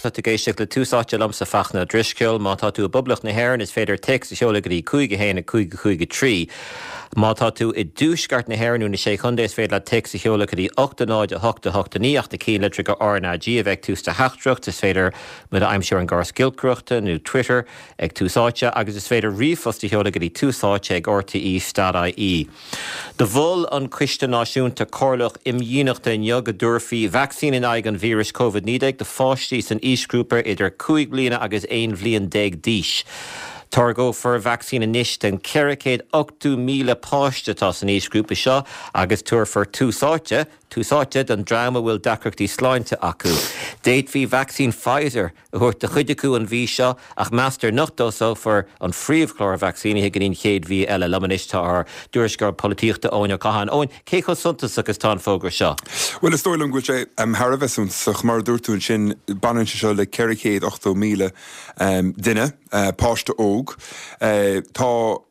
Tá tú ag éisteacht le Tús Áite liomsa Fachtna Ó Drisceoil. Má tá tú i bPoblacht na hÉireann is féidir téacs a sheoladh go dtí 5 1 5 5 3. Má tá tú i dTuaisceart na hÉireann nó na Sé Chontae is féidir leat téacs a sheoladh go dtí 8 0 8 8 9 ach na cinnlitreacha RnaG a bheith ag tús do theachtaireacht. Is féidir muid a aimsiú ar an gcóras giolcaireachta nó Twitter ag Tús Áite agus is féidir ríomhphost a sheoladh go dtí túsáite ag rte.ie. Do mhol an Coiste Náisiúnta Comhairleach Imdhíonachta inniu go dtabharfaí vacsaín in aghaidh an víris Covid-19 do pháistí san aoisghrúpa idir 5 bliana agus 11 bhliain d'aois. Táirgeofar vacsaín anois don 480,000 páiste atá san aoisghrúpa seo agus tabharfar tús áite tús áite don dream a bhfuil deacrachtaí sláinte acu. D'fhéadfaí vacsaín Pfizer a thabhairt do chuid acu an mhí seo ach meastar nach dtosófar an phríomhchlár vacsaínithe go dtí an chéad mhí eile. Liom anois tá ár dtuairisceoir polaitíochta Eoin Ó Catháin. Eoin, cé chomh suntasach is atá an fógra seo? Bhuel, is dóigh liom go bhfuil sé thar a bheith suntasach. Mar a dúirt tú ansin, baineann sé seo le 480,000 duine, páiste óg. Tá.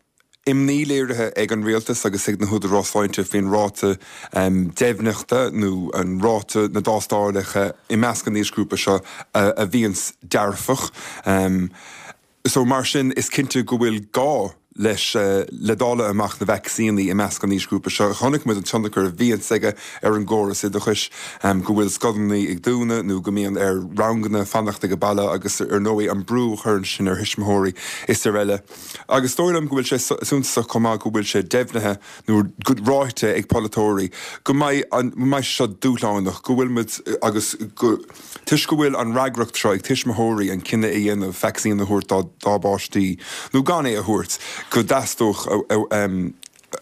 Imní léirithe ag an Rialtas agus ag na húdaráis sláinte faoin ráta deimhneachta nó an ráta na dtástálacha i measc an aoisghrúpa seo a bhíonns dearfach. So mar sin is cinnte go bhfuil gá leis le dáileadh amach na vacsaíní i measc an aoisghrúpa seo. Chonaic muid an tionchar a bhíonns aige ar an gcóras oideachais, go bhfuil scoileanna ag dúnadh nó go mbíonn ar ranganna fanacht ag baile agus ar ndóigh an brú a chuireann sin ar thuismitheoirí is araile. Agus is dóigh liom go bhfuil sé suntasach chomh maith go bhfuil sé deimhnithe nó ráite ag polaiteoirí go mbeidh an, go mbeidh sé seo dúshlánach, go bhfuil muid agus go, toisc go bhfuil an fhreagracht seo ag tuismitheoirí an cinneadh a dhéanamh vacsaín a thabhairt dá, dá bpáistí nó gan é a thabhairt, go dteastódh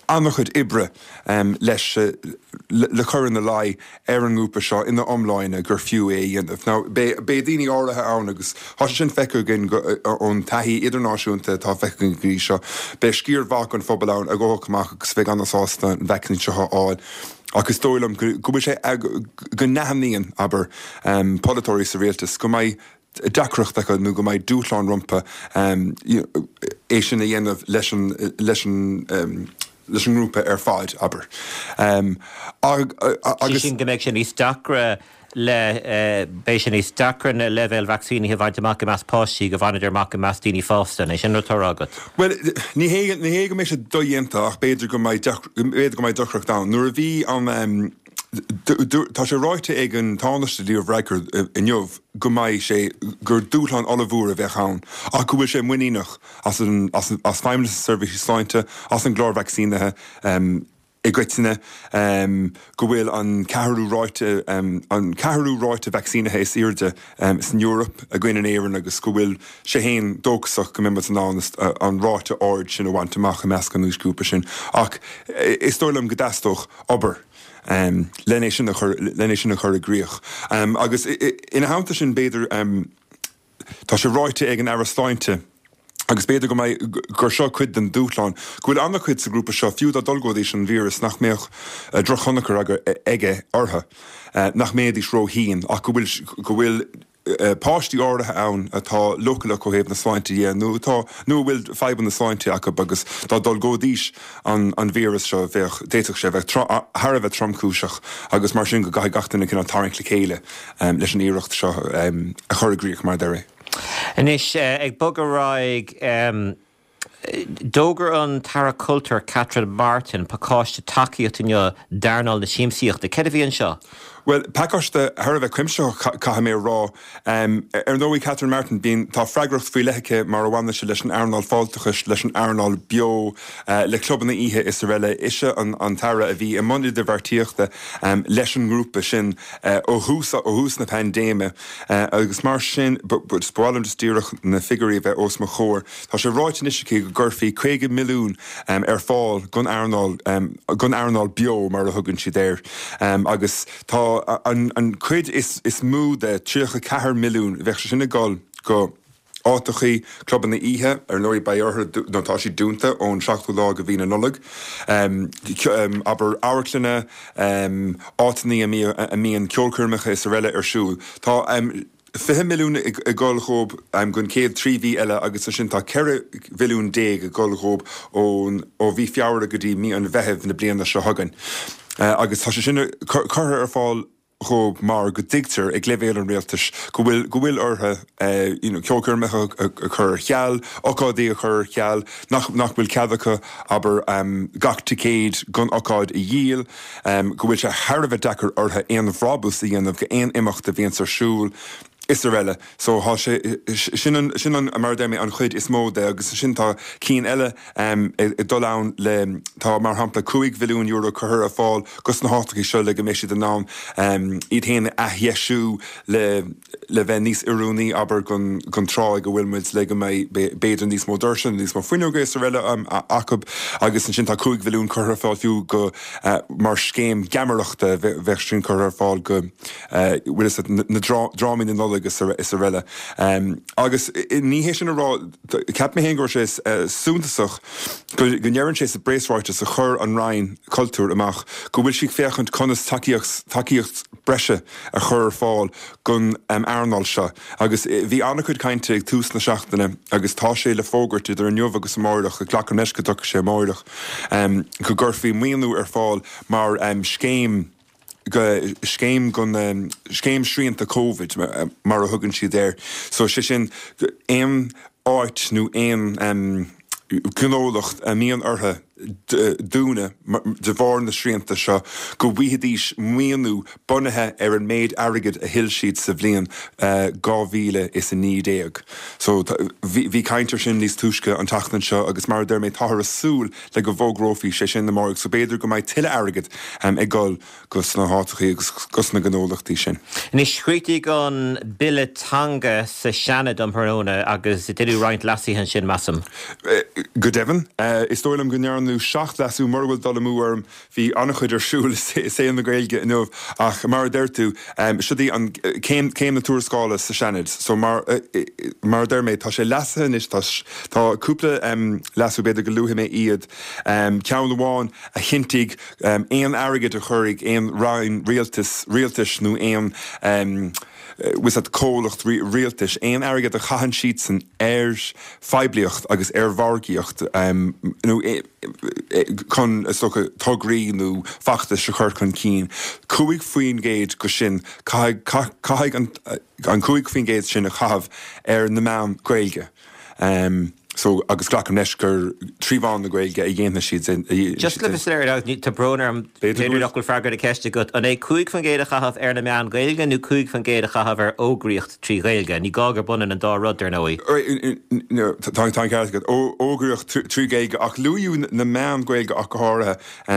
an-chuid oibre leis le cur ina luí ar an ngrúpa seo ina iomláine gur fiú é a dhéanamh. Now, beidh daoine áirithe ann agus tá sé sin feicthe againn ón taithí idirnáisiúnta atá feicthe againn go dtí seo, beidh sciar mhaith den phobal ann a ghabhfadh amach agus a bheidh an-sásta an vacsaín seo a fháil ach is dóigh liom go bhfuil sé, go n-aithníonn, abair, polaiteoirí sa rialtas go mbeidh deacracht acu nó go mbeidh dúshlán rompu é sin a dhéanamh leis an leis an leis an ngrúpa ar fad, abair. Agus. Sin go mbeidh sé níos deacra le beidh sé níos deacra na leibhéil vacsaínithe a bhaint amach i measc páistí go bhaineadar amach i measc daoine fásta. An é sin rud atá á rá agat? Bhuel, ní hé ní hé go mbeidh sé dodhéanta ach b'fhéidir go mbeidh b'fhéidir go mbeidh deacracht ann. Nuair a bhí an tá sé ráite ag an Tánaiste Leo Varadkar inniu go mbeidh sé, gur dúshlán ollmhór a bheadh ann ach go bhfuil sé muiníneach as an, as, as Feidhmeannas na Seirbhíse Sláinte, as an gclár vacsaínithe i gcoitinne, go bhfuil an ceathrú ráite, an ceathrú ráite vacsaínithe is airde san Eoraip againn in Éirinn agus go bhfuil sé féin dóchasach go mbeidh muid in ann an ráite ard sin a bhaint amach i measc an aoisghrúpa sin. Ach is dóigh liom go dteastódh obair. len é sin a chur, len é sin a chur i gcrích. Agus ina theannta sin, b'fhéidir, tá sé ráite ag an Aire Sláinte, agus b'fhéidir go mbeidh, gur seo cuid den dúshlán, go bhfuil an-chuid sa ghrúpa seo, fiú dá dtolgóidís an víreas, nach mbeadh drochthionchar aige orthu, nach mbeidís róthinn, ach go bhfuil, go bhfuil. páistí áirithe ann atá leochaileach ó thaobh na sláinte dhe nó atá, nó a bhfuil fadhbanna sláinte acu agus dá dtolgóidís an an víreas seo bheadh, d'fhéadfadh sé a bheith thar a bheith tromchúiseach agus mar sin go gcaithfidh gach duine cineál tarraingt le chéile leis an iarracht seo a chur i gcrích mar a deir é. Anois, ag bogadh ar aghaidh, D'fhógair an tAire Cultúir Catherine Martin pacáiste tacaíochta inniu d'earnáil na siamsaíochta. Céard a bhí anseo? Bhuel, pacáiste thar a bheith cuimsitheach, caithfidh mé a rá. Ar ndóigh, Catherine Martin, bíonn, tá freagracht faoi leith aici mar a bhaineann sé leis an earnáil fáilteachais, leis an earnáil beo, le clubanna oíche is araile. Ise an tAire a bhí i mbun idirbheartaíochta leis an ngrúpa sin ó thús, ó thús na paindéime agus mar sin, ba mhaith liom just díreach na figiúirí a bheith os mo chomhair. Tá sé ráite anois aici go gcuirfí 50 milliún ar fáil don earnáil, don earnáil beo mar a thugann siad air, agus tá an chuid is mó de, 34 milliún, bheadh sé sin ag dul go áiteachaí, clubanna oíche, ar ndóigh beidh orthu, nó tá siad dúnta ón seachtú lá de mhí na Nollag, abair amharclanna, áiteanna a mbíonn ceolchoirmeacha is araile ar siúl. Tá. 20 milliún ag dul dhób don chéad 3 mhí eile agus ansin tá 14 mhilliún ag dul dhób ón ó mhí Feabhra go dtí mí an Mheithimh na bliana seo chugainn. Agus tá sé sin curtha ar fáil. dhóibh mar go dtuigtear ag leibhéal an rialtais go bhfuil, go bhfuil orthu you know ceolchoirmeacha a chur ar ceal, ocáidí a chur ar ceal, nach, nach bhfuil cead acu, abair, gach ticéad gon ocáid a dhíol, go bhfuil sé thar a bheith deacair orthu aon bhrabús a dhéanamh go aon imeacht a bhíonns ar siúl is araile. So tá sé, sin an, sin an, mar a deir mé, an chuid is mó de agus ansin tá cinn eile ag dul ann le, tá mar shampla €5 mhilliún curtha ar fáil dos na háiteachaí seo le go mbeidh siad in ann iad féin a athdheisiú le le bheith níos oiriúnaí, abair, gon gon tráth ag a bhfuil muid le go mbeidh b'fhéidir níos mó doirse nó níos mó fuinneoga is araile acu agus ansin tá 5 mhilliún curtha ar fáil fiú go mar scéim geamaireachta bheadh sin curtha ar fáil go bhfuil fhios agat na drámaí na Nollag is araile. Agus ní hé sin a rá, cheap mé féin go raibh sé suntasach go ndeireann sé sa bpreasráiteas a chuir an Roinn Cultúir amach go bhfuil sí ag féachaint conas tacaíocht tacaíocht breise a chur ar fáil don earnáil seo. Agus bhí an-chuid cainte ag tús na seachtaine agus tá sé le fógairt idir inniu agus amáireach, glacaim leis go dtiocfaidh sé amáireach, go gcuirfí maoiniú ar fáil mar scéim, scéim gon scéim srianta Covid mar a thugann siad air. So sé sin aon áit nó aon gnólacht a mbíonn orthu dúnadh de bharr na srianta seo go bhfaighidís maoiniú bunaithe ar an méid airgid a thuill siad sa bhliain 2019. So bhí caint ar sin níos túisce an tseachtain seo agus mar a deir mé táthar ag súil le go bhfógrófaí sé sin amárach so b'fhéidir go mbeidh tuilleadh airgid ag dul go sna háiteachaí agus go sna gnólachtaí sin. Anois, chríochnaigh an bille teanga sa Seanad um thráthnóna agus deineadh roinnt leasuithe ansin, measaim. Go deimhin. Is dóigh liom go ndearnadh 7 leasú, mura bhfuil dul amú orm. Bhí an-chuid ar siúl i saol na Gaeilge inniu ach mar a deir tú, siod í an céim, céim na tuarascála sa Seanad. So mar, mar a deir mé, tá sé leasaithe anois, tá, tá cúpla leasú, b'fhéidir go luafaidh mé iad. Ceann amháin a chinntigh aon airgead a chuirfidh aon roinn rialtais, rialtais nó aon, bhfuil fhios agat, comhlacht rialtais, aon airgead a chaitheann siadsan ar phoiblíocht agus ar mhargaíocht nó chun, is dócha, tograí nó feachtais a chur chun cinn, 5% go sin, caithfidh, caithfidh an 5% sin a chaitheamh ar na meáin Ghaeilge. So, agus glacaim leis gur trí mheán na Gaeilge a dhéanfaidh siad sin. Just le bheith soiléir, tá brón orm, b'fhéidir nach bhfuil freagra na ceiste agat, an é 5% a chaitheamh ar na meáin Ghaeilge nó 5% a chaitheamh ar fhógraíocht trí Ghaeilge? Ní gá gurb ionann an dá rud, dar ndóigh. Tá an ceart agat. Fhógraíocht trí Ghaeilge, ach luadh na meáin Ghaeilge ach go háirithe.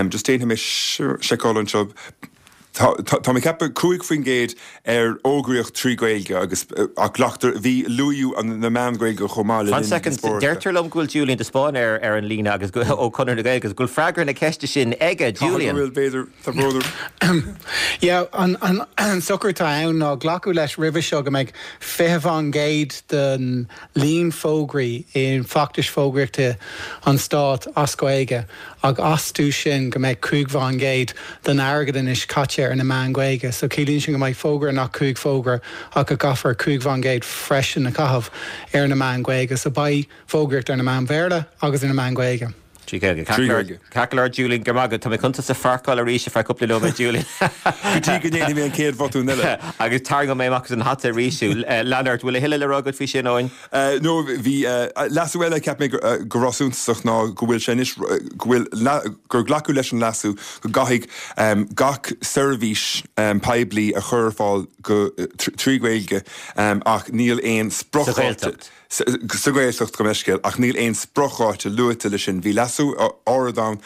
Just déanfaidh mé seiceáil anseo. Tá mé ag ceapadh 5% ar fhógraíocht trí Ghaeilge agus ach glactar, bhí, luadh na meáin Ghaeilge chomh maith le linn na díospóireachta. Deirtear liom go bhfuil Julian de Spáinn ar ar an líne agus go, ó Conradh na Gaeilge agus go bhfuil freagra na ceiste sin aige. Julian. Caithfidh go bhfuil, b'fhéidir, tá brón orm. Yeah, an, an, an socrú atá ann ná glacadh leis roimhe seo go mbeidh 20% den líon fógraí i bhfeachtais fógraíochta an Stáit as Gaeilge. Ach astu sin go mbeidh 5% den airgead anois caite ar na meáin Ghaeilge. So ciallaíonn sin go mbeidh fógra nach 5 fógra ach go gcaithfear 5% freisin a chaitheamh ar na meáin Ghaeilge. So beidh fógraíocht ar na meáin Bhéarla agus ar na meáin Ghaeilge. Trí Ghaeilge. Ceart go leor, ceart go leor Julian, go raibh maith agat. Tá mé chun tusa a pharcáil arís ar feadh cúpla nóiméad Julian. Go dtí go ndéanfaidh mé an chéad bhotún eile. Agus tarraingeoidh mé amach as an hata arís thú. Lean ort, bhfuil a thuilleadh le rá agat faoi sin, Eoin? No, bhí leasú eile a cheap mé go raibh suntasach ná go bhfuil sé anois, go bhfuil, gur glacadh leis an leasú go gcaithfidh gach seirbhís poiblí a chur ar fáil go, trí Ghaeilge ach níl aon spriocdháta. Sa Ghaeltacht. Sa Ghaeltacht, gabh mo leithscéal, ach níl aon spriocdháta luaite leis sin. Bhí leasú áirid ann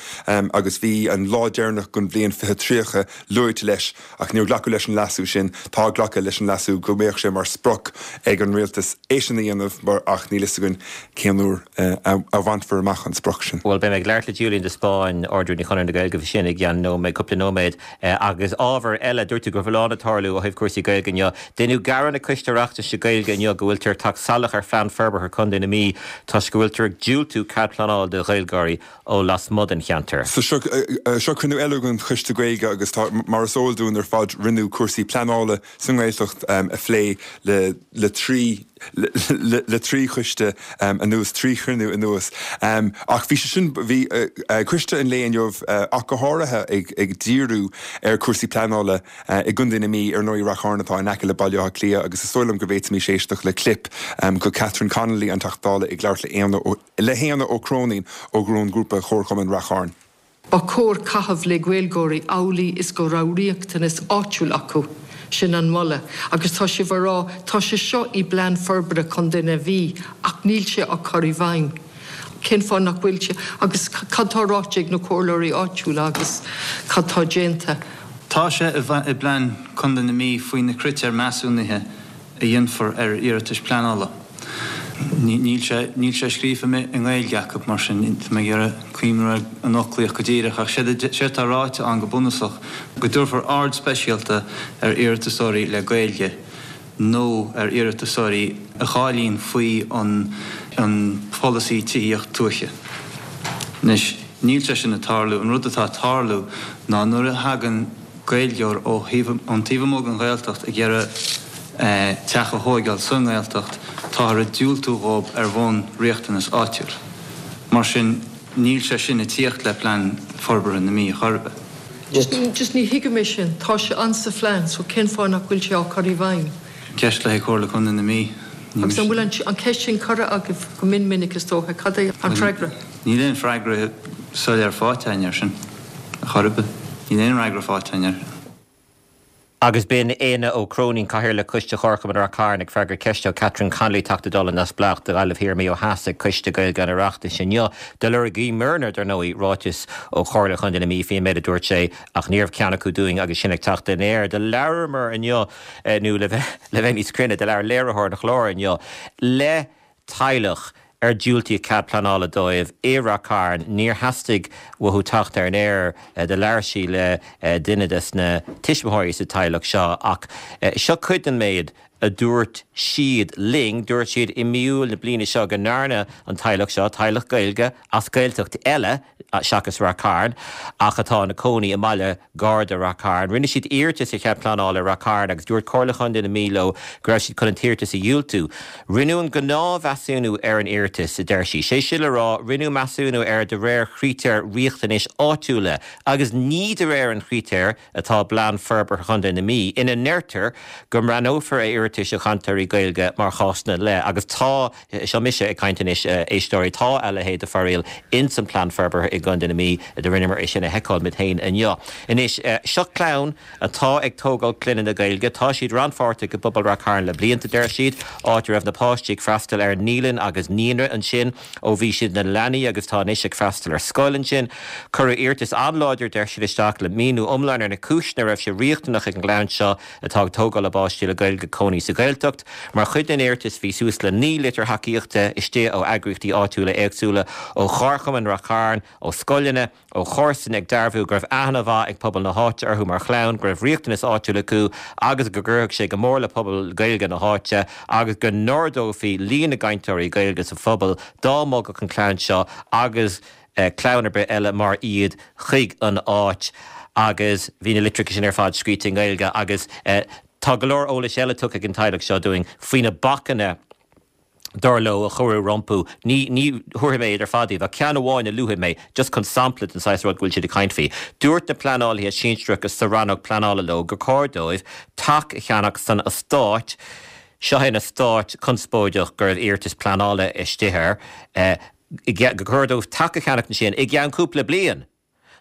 agus bhí an lá deireanach den bhliain 2030 luaite leis. Ach níor glacadh leis an leasú sin. Tá glactha leis an leasú go mbeadh sé mar sprioc ag an rialtas é sin a dhéanamh mar ach níl fhios againn cén uair a bhainfear amach an sprioc sin. Bhuel, beidh mé ag labhairt le Julian de Spáinn, Ard-Rúnaí Chonradh na Gaeilge, faoi sin i gceann nóiméad, cúpla nóiméad. Agus ábhar eile, dúirt tú go raibh a lán ag tarlú ó thaobh cúrsaí Gaeilge inniu. Deineadh gearán ag Coiste Oireachtais na Gaeilge inniu go bhfuiltear ag teacht salach ar Phlean Forbartha Contae na Mí toisc go bhfuiltear ag diúltú cead pleanála do Ghaeilgeoirí ó lasmuigh den cheantar. So seo, seo cruinniú eile den Choiste Gaeilge agus tá, mar is eol dúinn ar fad, rinneadh cúrsaí pleanála sa nGaeltacht a phlé le, le trí. Le 3 choiste anuas, 3 chruinniú anuas. Ach bhí sé sin, bhí coiste an lae inniu ach go háirithe ag díriú ar chúrsaí pleanála i gContae na Mí, ar ndóigh Rath Chairn atá in aice le Baile Átha Cliath agus is dóigh liom go bhféadfaimis éisteacht le clip de Catherine Connolly, an Teachta Dála ag labhairt le hÉanna Ó Cróinín ón ghrúpa Chomharchumann Rath Chairn. Ba chóir caitheamh le Gaeilgeoirí amhlaidh is go raibh riachtanas áitiúil acu. Sin an moladh. Agus tá sibh a rá, tá sé seo i bPlean Forbartha Chontae na Mí ach níl sé á chur i bhfeidhm. Cén fáth nach bhfuil sé? Agus cad tá ráite ag na comhairleoirí áitiúla agus cad tá déanta? Tá sé i bPlean Contae na Mí faoi na critéir measúnaithe a dhéanfar ar iarratais pleanála. Níl sé, níl sé scríofa i nGaeilge acu, mar sin tá mé ag iarraidh cuimhniú ar an fhoclaíocht go díreach, ach séard a, séard atá ráite ann go bunúsach, go dtabharfar aird speisialta ar iarratasóirí le Gaeilge nó ar iarratasóirí a cháilíonn faoi an an pholasaí tithíocht tuaithe. Anois, níl sé sin ag tarlú. An rud atá ag tarlú ná nuair a thagann. Gaeilgeoir ó thaobh, ón taobh amuigh den Ghaeltacht ag iarraidh teach a thóigeáil sa nGaeltacht, táthar ag diúltú dhóib ar bhonn riachtanas áitiúil. Mar sin, níl sé sin ag tíocht le Plean Forbartha na Mí chor ar bith. Just, just ní thuigim é sin. Tá sé ann sa phlean, so cén fáth nach bhfuil sé á chur i bhfeidhm? Ceist le haghaidh Chomhairle Contae na Mí. Agus an bhfuil an, an ceist sin curtha agaibh go mion minic is dócha? Cad é an freagra? Níl aon freagra soiléir faighte againn air sin, a chor ar bith. Níl aon fhreagra faighte againn air. Agus b'in Éanna Ó Cróinín, Cathaoirleach Coiste Chomharchumann Rath Cairn, ag freagairt ceiste ó Catherine Connolly, Teachta Dála Neamhspleách do Ghaillimh Thiar Mí ó Theas ag Coiste Gaeilge an Oireachtais inniu. Do lorgaíomarna, dar ndóigh, ráiteas ó Chomhairle Chontae na Mí faoin méid a dúirt sé ach ní raibh ceann acu dúinn agus sinn ag teacht ar an aer. Do labhramar inniu, nó le bheith níos cruinne, do labhair léiritheoir an chláir inniu le teaghlach ar diúltaíodh cead pleanála dóibh i Rath Cairn. Níor theastaigh uathu teacht ar an aer. Do labhair sí le duine des na tuismitheoirí sa teaghlach seo ach seo cuid den méid a dúirt siad linn. Dúirt siad i mí Iúil na bliana seo go ndearna an teaghlach seo, teaghlach Gaeilge as Gaeltacht eile seachas Rath Cairn ach atá ina cónaí i mbaile gar do Rath Cairn. Rinne siad iarratas ar chead pleanála i Rath Cairn agus dúirt Comhairle Chontae na Mí leo go raibh siad chun an t-iarratas a dhiúltú. Rinneadh an gnáthmheasúnú ar an iarratas, a deir sí. Sé sin le rá, rinneadh measúnú air de réir chritéir riachtanais áitiúla agus ní de réir an chritéir atá i bPlean Forbartha Chontae na Mí ina ndeirtear go mbreathnófar ar iarratais ó chainteoirí Gaeilge mar chásanna leith agus tá Seo mise ag caint anois, a éisteoirí. Tá a leithéid de fhoráil ins an Plean Forbartha i gContae na Mí. Do rinneamar é sin a sheiceáil muid féin inniu. Anois, seo clann atá ag tógáil clainne le Gaeilge. Tá siad rannpháirteach i bpobal Rath Cairn le blianta, deir siad, áit a raibh na páistí ag freastal ar naíolann agus naíonra ansin ó bhí siad ina leanaí agus tá anois ag freastal ar scoil ansin. Cuireadh iarratas an-láidir, deir siad, isteach le míniú iomlán ar na cúiseanna a raibh sé riachtanach ag an gclann seo atá ag tógáil a bpáistí le Gaeilge cónaí sa Ghaeltacht. Mar chuid den iarratas bhí suas le 9 litir thacaíochta istigh ó eagraíochtaí áitiúla éagsúla, ó Chomharchumann Rath Cairn, ó scoileanna, ó chomharsana ag dearbhú go raibh aithne mhaith ag pobal na háite orthu mar chlann, go raibh riachtanas áitiúil acu agus go gcuirfeadh sé go mór le pobal Gaeilge na háite agus go n-ardófaí líon na gcainteoirí Gaeilge sa phobal dá mbogfadh an chlann seo agus clann ar bith eile mar iad chuig an áit agus bhí na litreacha sin ar fad scríte i nGaeilge agus tá go leor eolais eile tugtha ag an teaghlach seo dúinn faoi na bacanna dar leo a cuireadh rompu. Ní ní thabharfaidh mé iad ar fad daoibh ach ceann amháin a luafaidh mé just chun sampla den saghas rud go bhfuil siad ag caint faoi. Dúirt na pleanálaithe sinsearacha sa rannóg pleanála leo gur chóir dóibh teach a cheannach san eastát, seo é an eastát conspóideach go raibh iarratas pleanála istigh air, gur chóir dóibh teach a cheannach ansin i gceann cúpla bliain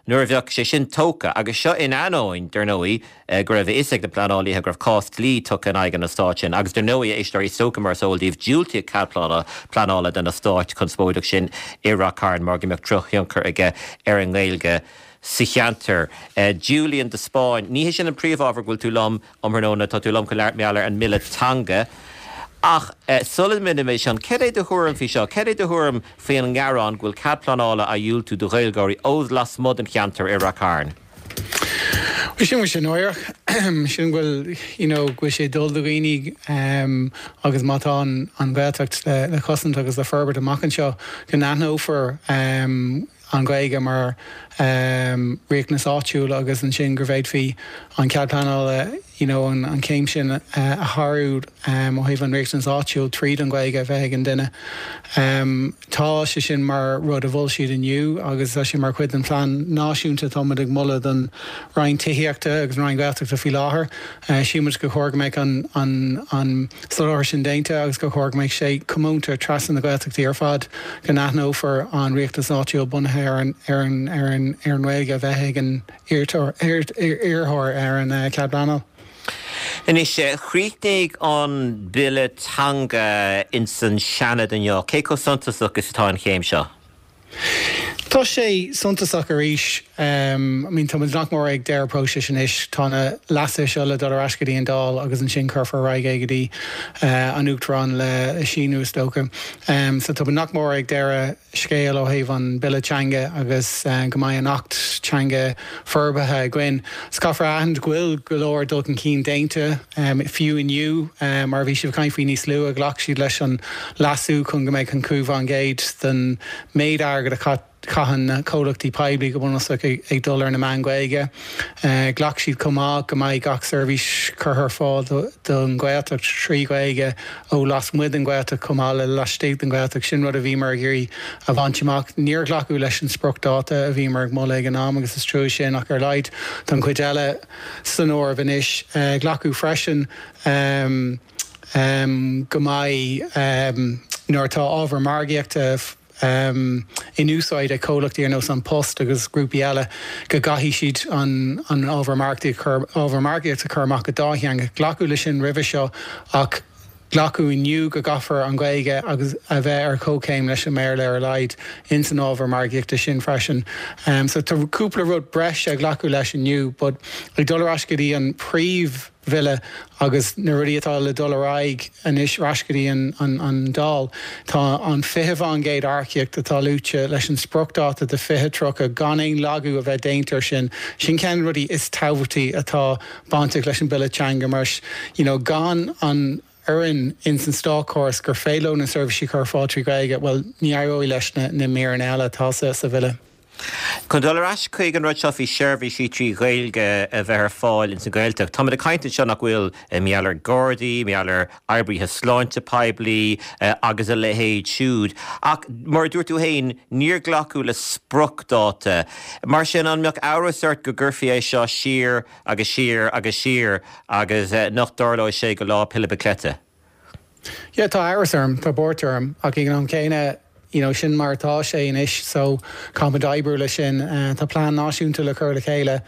nuair a bheadh sé sin tógtha, agus seo in ainneoin, dar ndóigh, go raibh a fhios ag na pleanálaithe go raibh cás dlí tugtha in aghaidh an eastáit sin. Agus dar ndóigh, a éisteoirí, is dócha mar is eol daoibh, diúltaíodh cead pleanála don eastát conspóideach sin i Rath Cairn mar go mbeadh drochthionchar aige ar an nGaeilge sa cheantar. Julian de Spáinn, ní hé sin an príomhábhar go bhfuil tú liom Um thráthnóna, tá tú liom chun labhairt mar gheall ar an mBille Teanga. Ach sula ndéanaimid sin, cad é do thuairim faoi seo? Cad é do thuairim faoi an ngearán go bhfuil cead pleanála á dhiúltú do Ghaeilgeoirí ó lasmuigh den cheantar i Rath Cairn? Bhuel, sin bhfuil sé náireach. Sin go bhfuil, you know, go bhfuil sé ag dul do dhaoine agus má tá an Ghaeltacht le cosaint agus le forbairt amach anseo, go n-aithneofar an Ghaeilge mar. Riachtanas áitiúil agus ansin go bhféadfaí an cead pleanála you know an chéim sin a shárú ó thaobh an riachtanas áitiúil tríd an Ghaeilge a bheith ag an duine. Tá sé sin mar rud a mhol siad inniu agus tá sé mar chuid den phlean náisiúnta atá muid ag moladh don Roinn Tithíochta agus an Roinn Gaeltachta faoi láthair. Sílimid gur chóir go mbeadh an an soláthar sin déanta agus gur chóir go mbeadh sé comónta trasna na Gaeltachtaí ar fad, go n-aithneofar an riachtanas áitiúil bunaithe ar an ar an ar an ar an nGaeilge a bheith ag an iarrthóir ar an chead pleanála. Anois, chríochnaigh an Bille Teanga ins an Seanad inniu. Cé chomh suntasach is atá an chéim seo? Tá sé suntasach arís. I mean tá muid nach mór ag deireadh próisis anois. Tá na leasuithe seo le dul ar ais go dtí an Dáil agus ansin cuirfear ar aghaidh é go dtí an Uachtarán le síniú is dócha. So tá muid nach mór ag deireadh scéil ó thaobh an Bille Teanga agus go mbeidh an Acht Teanga forbartha againn. So caithfear a aithint go bhfuil go leor dul chun cinn déanta, fiú inniu, mar a bhí sibh ag caint faoi níos luaithe, ghlac siad leis an leasú chun go mbeadh an 5% den méid airgid a chaitheann na comhlachtaí poiblí go bunúsach ag dul ar na meáin Ghaeilge. Ghlac siad chomh maith go mbeidh gach seirbhís curtha ar fáil don Ghaeltacht trí Ghaeilge ó lasmuigh den Ghaeltacht chomh maith le laistigh den Ghaeltacht. Sin rud a bhíomar ag iarraidh a bhaint amach. Níor glacadh leis an spriocdháta a bhíomar ag moladh ag an am agus is trua sin ach ar a laghad tá an chuid eile san áireamh anois. Glacadh freisin go mbeidh, nuair atá ábhar margaíochta in úsáid ag comhlachtaí ar nós An Post agus grúpaí eile, go gcaithfidh siad an ábhar margaíochta a chur amach go dátheangach. Glacadh leis sin roimhe seo ach glacadh inniu go gcaithfear an Ghaeilge agus a bheith ar comhchéim leis an mBéarla ar a laghad ins an ábhar margaíochta sin freisin. So tá cúpla rud breise a glacadh leis inniu but ag dul ar ais go dtí an príomh Bhille agus na rudaí atá le dul ar aghaidh anois ar ais go dtí an Dáil. Tá an 20% earcaíocht atá luaite leis an spriocdháta de 2030 gan aon lagú a bheith déanta ar sin. Sin ceann de na rudaí is tábhachtaí atá bainteach leis an Bille Teanga mar you know gan an fhoireann ins an státchóras gur féidir leo na seirbhísí a chur ar fáil trí Ghaeilge, bhuel ní éireoidh leis na míreanna eile atá sa Bhille. Chun dul ar ais chuig an rud seo faoi seirbhísí trí Ghaeilge a bheith ar fáil ins an Ghaeltacht, táimid ag caint anseo nach bhfuil, mar gheall ar Gardaí, mar gheall ar oibrithe sláinte poiblí agus a leithéid siúd. Ach mar a dúirt tú féin, níor glacadh le spriocdháta. Mar sin, an mbeadh amhras ort go gcuirfí é seo siar agus siar agus siar agus nach dtarlóidh sé go Lá Pilib Cleite? Yeah, tá amhras orm, tá buairt orm, ach ag an am céanna, you know, sin mar atá sé anois so caithfimid oibriú leis sin. Tá plean náisiúnta le cur le chéile,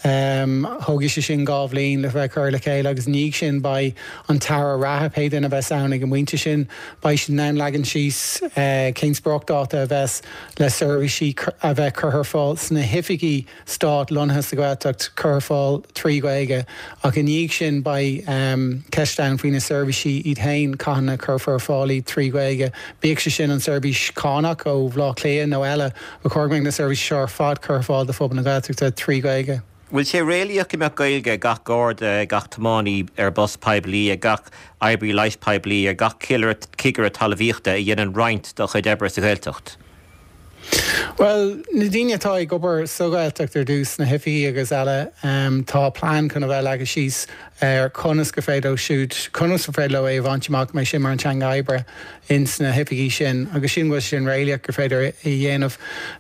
thógfaidh sé sin dhá bhliain le bheith curtha le chéile agus i ndiaidh sin beidh an tAire reatha, pé duine a bheas ann ag an bpointe sin, beidh siad in ann leagan síos cén spriocdháta a bheas le seirbhísí a bheith curtha ar fáil sna hoifigí Stáit lonnaithe sa Ghaeltacht curtha ar fáil trí Ghaeilge ach i ndiaidh sin beidh ceist ann faoi na seirbhísí iad féin, cathain a chuirfear ar fáil iad trí Ghaeilge, bíodh sé sin an seirbhís cánach ó Bhaile Átha Cliath nó eile, ba chóir go mbeadh na seirbhísí seo ar fad curtha ar fáil do phobal na Gaeltachta trí Ghaeilge. Bhfuil sé réalaíoch go mbeadh Gaeilge ag gach Garda, ag gach tiománaí ar bus poiblí, ag gach oibrí leighis poiblí, ar gach cigire talmhaíochta a dhéanann roinnt dá chuid oibre sa Ghaeltacht? Bhuel, na daoine atá ag obair sa Ghaeltacht ar dtús, sna hoifigí agus eile, tá plean chun a bheith leagtha síos ar conas gur féidir leo siúd, conas gur féidir leo é a bhaint amach, go mbeidh sin mar an teanga oibre ins na hoifigí sin agus sílim go bhfuil sé sin réalaíoch gur féidir é a dhéanamh.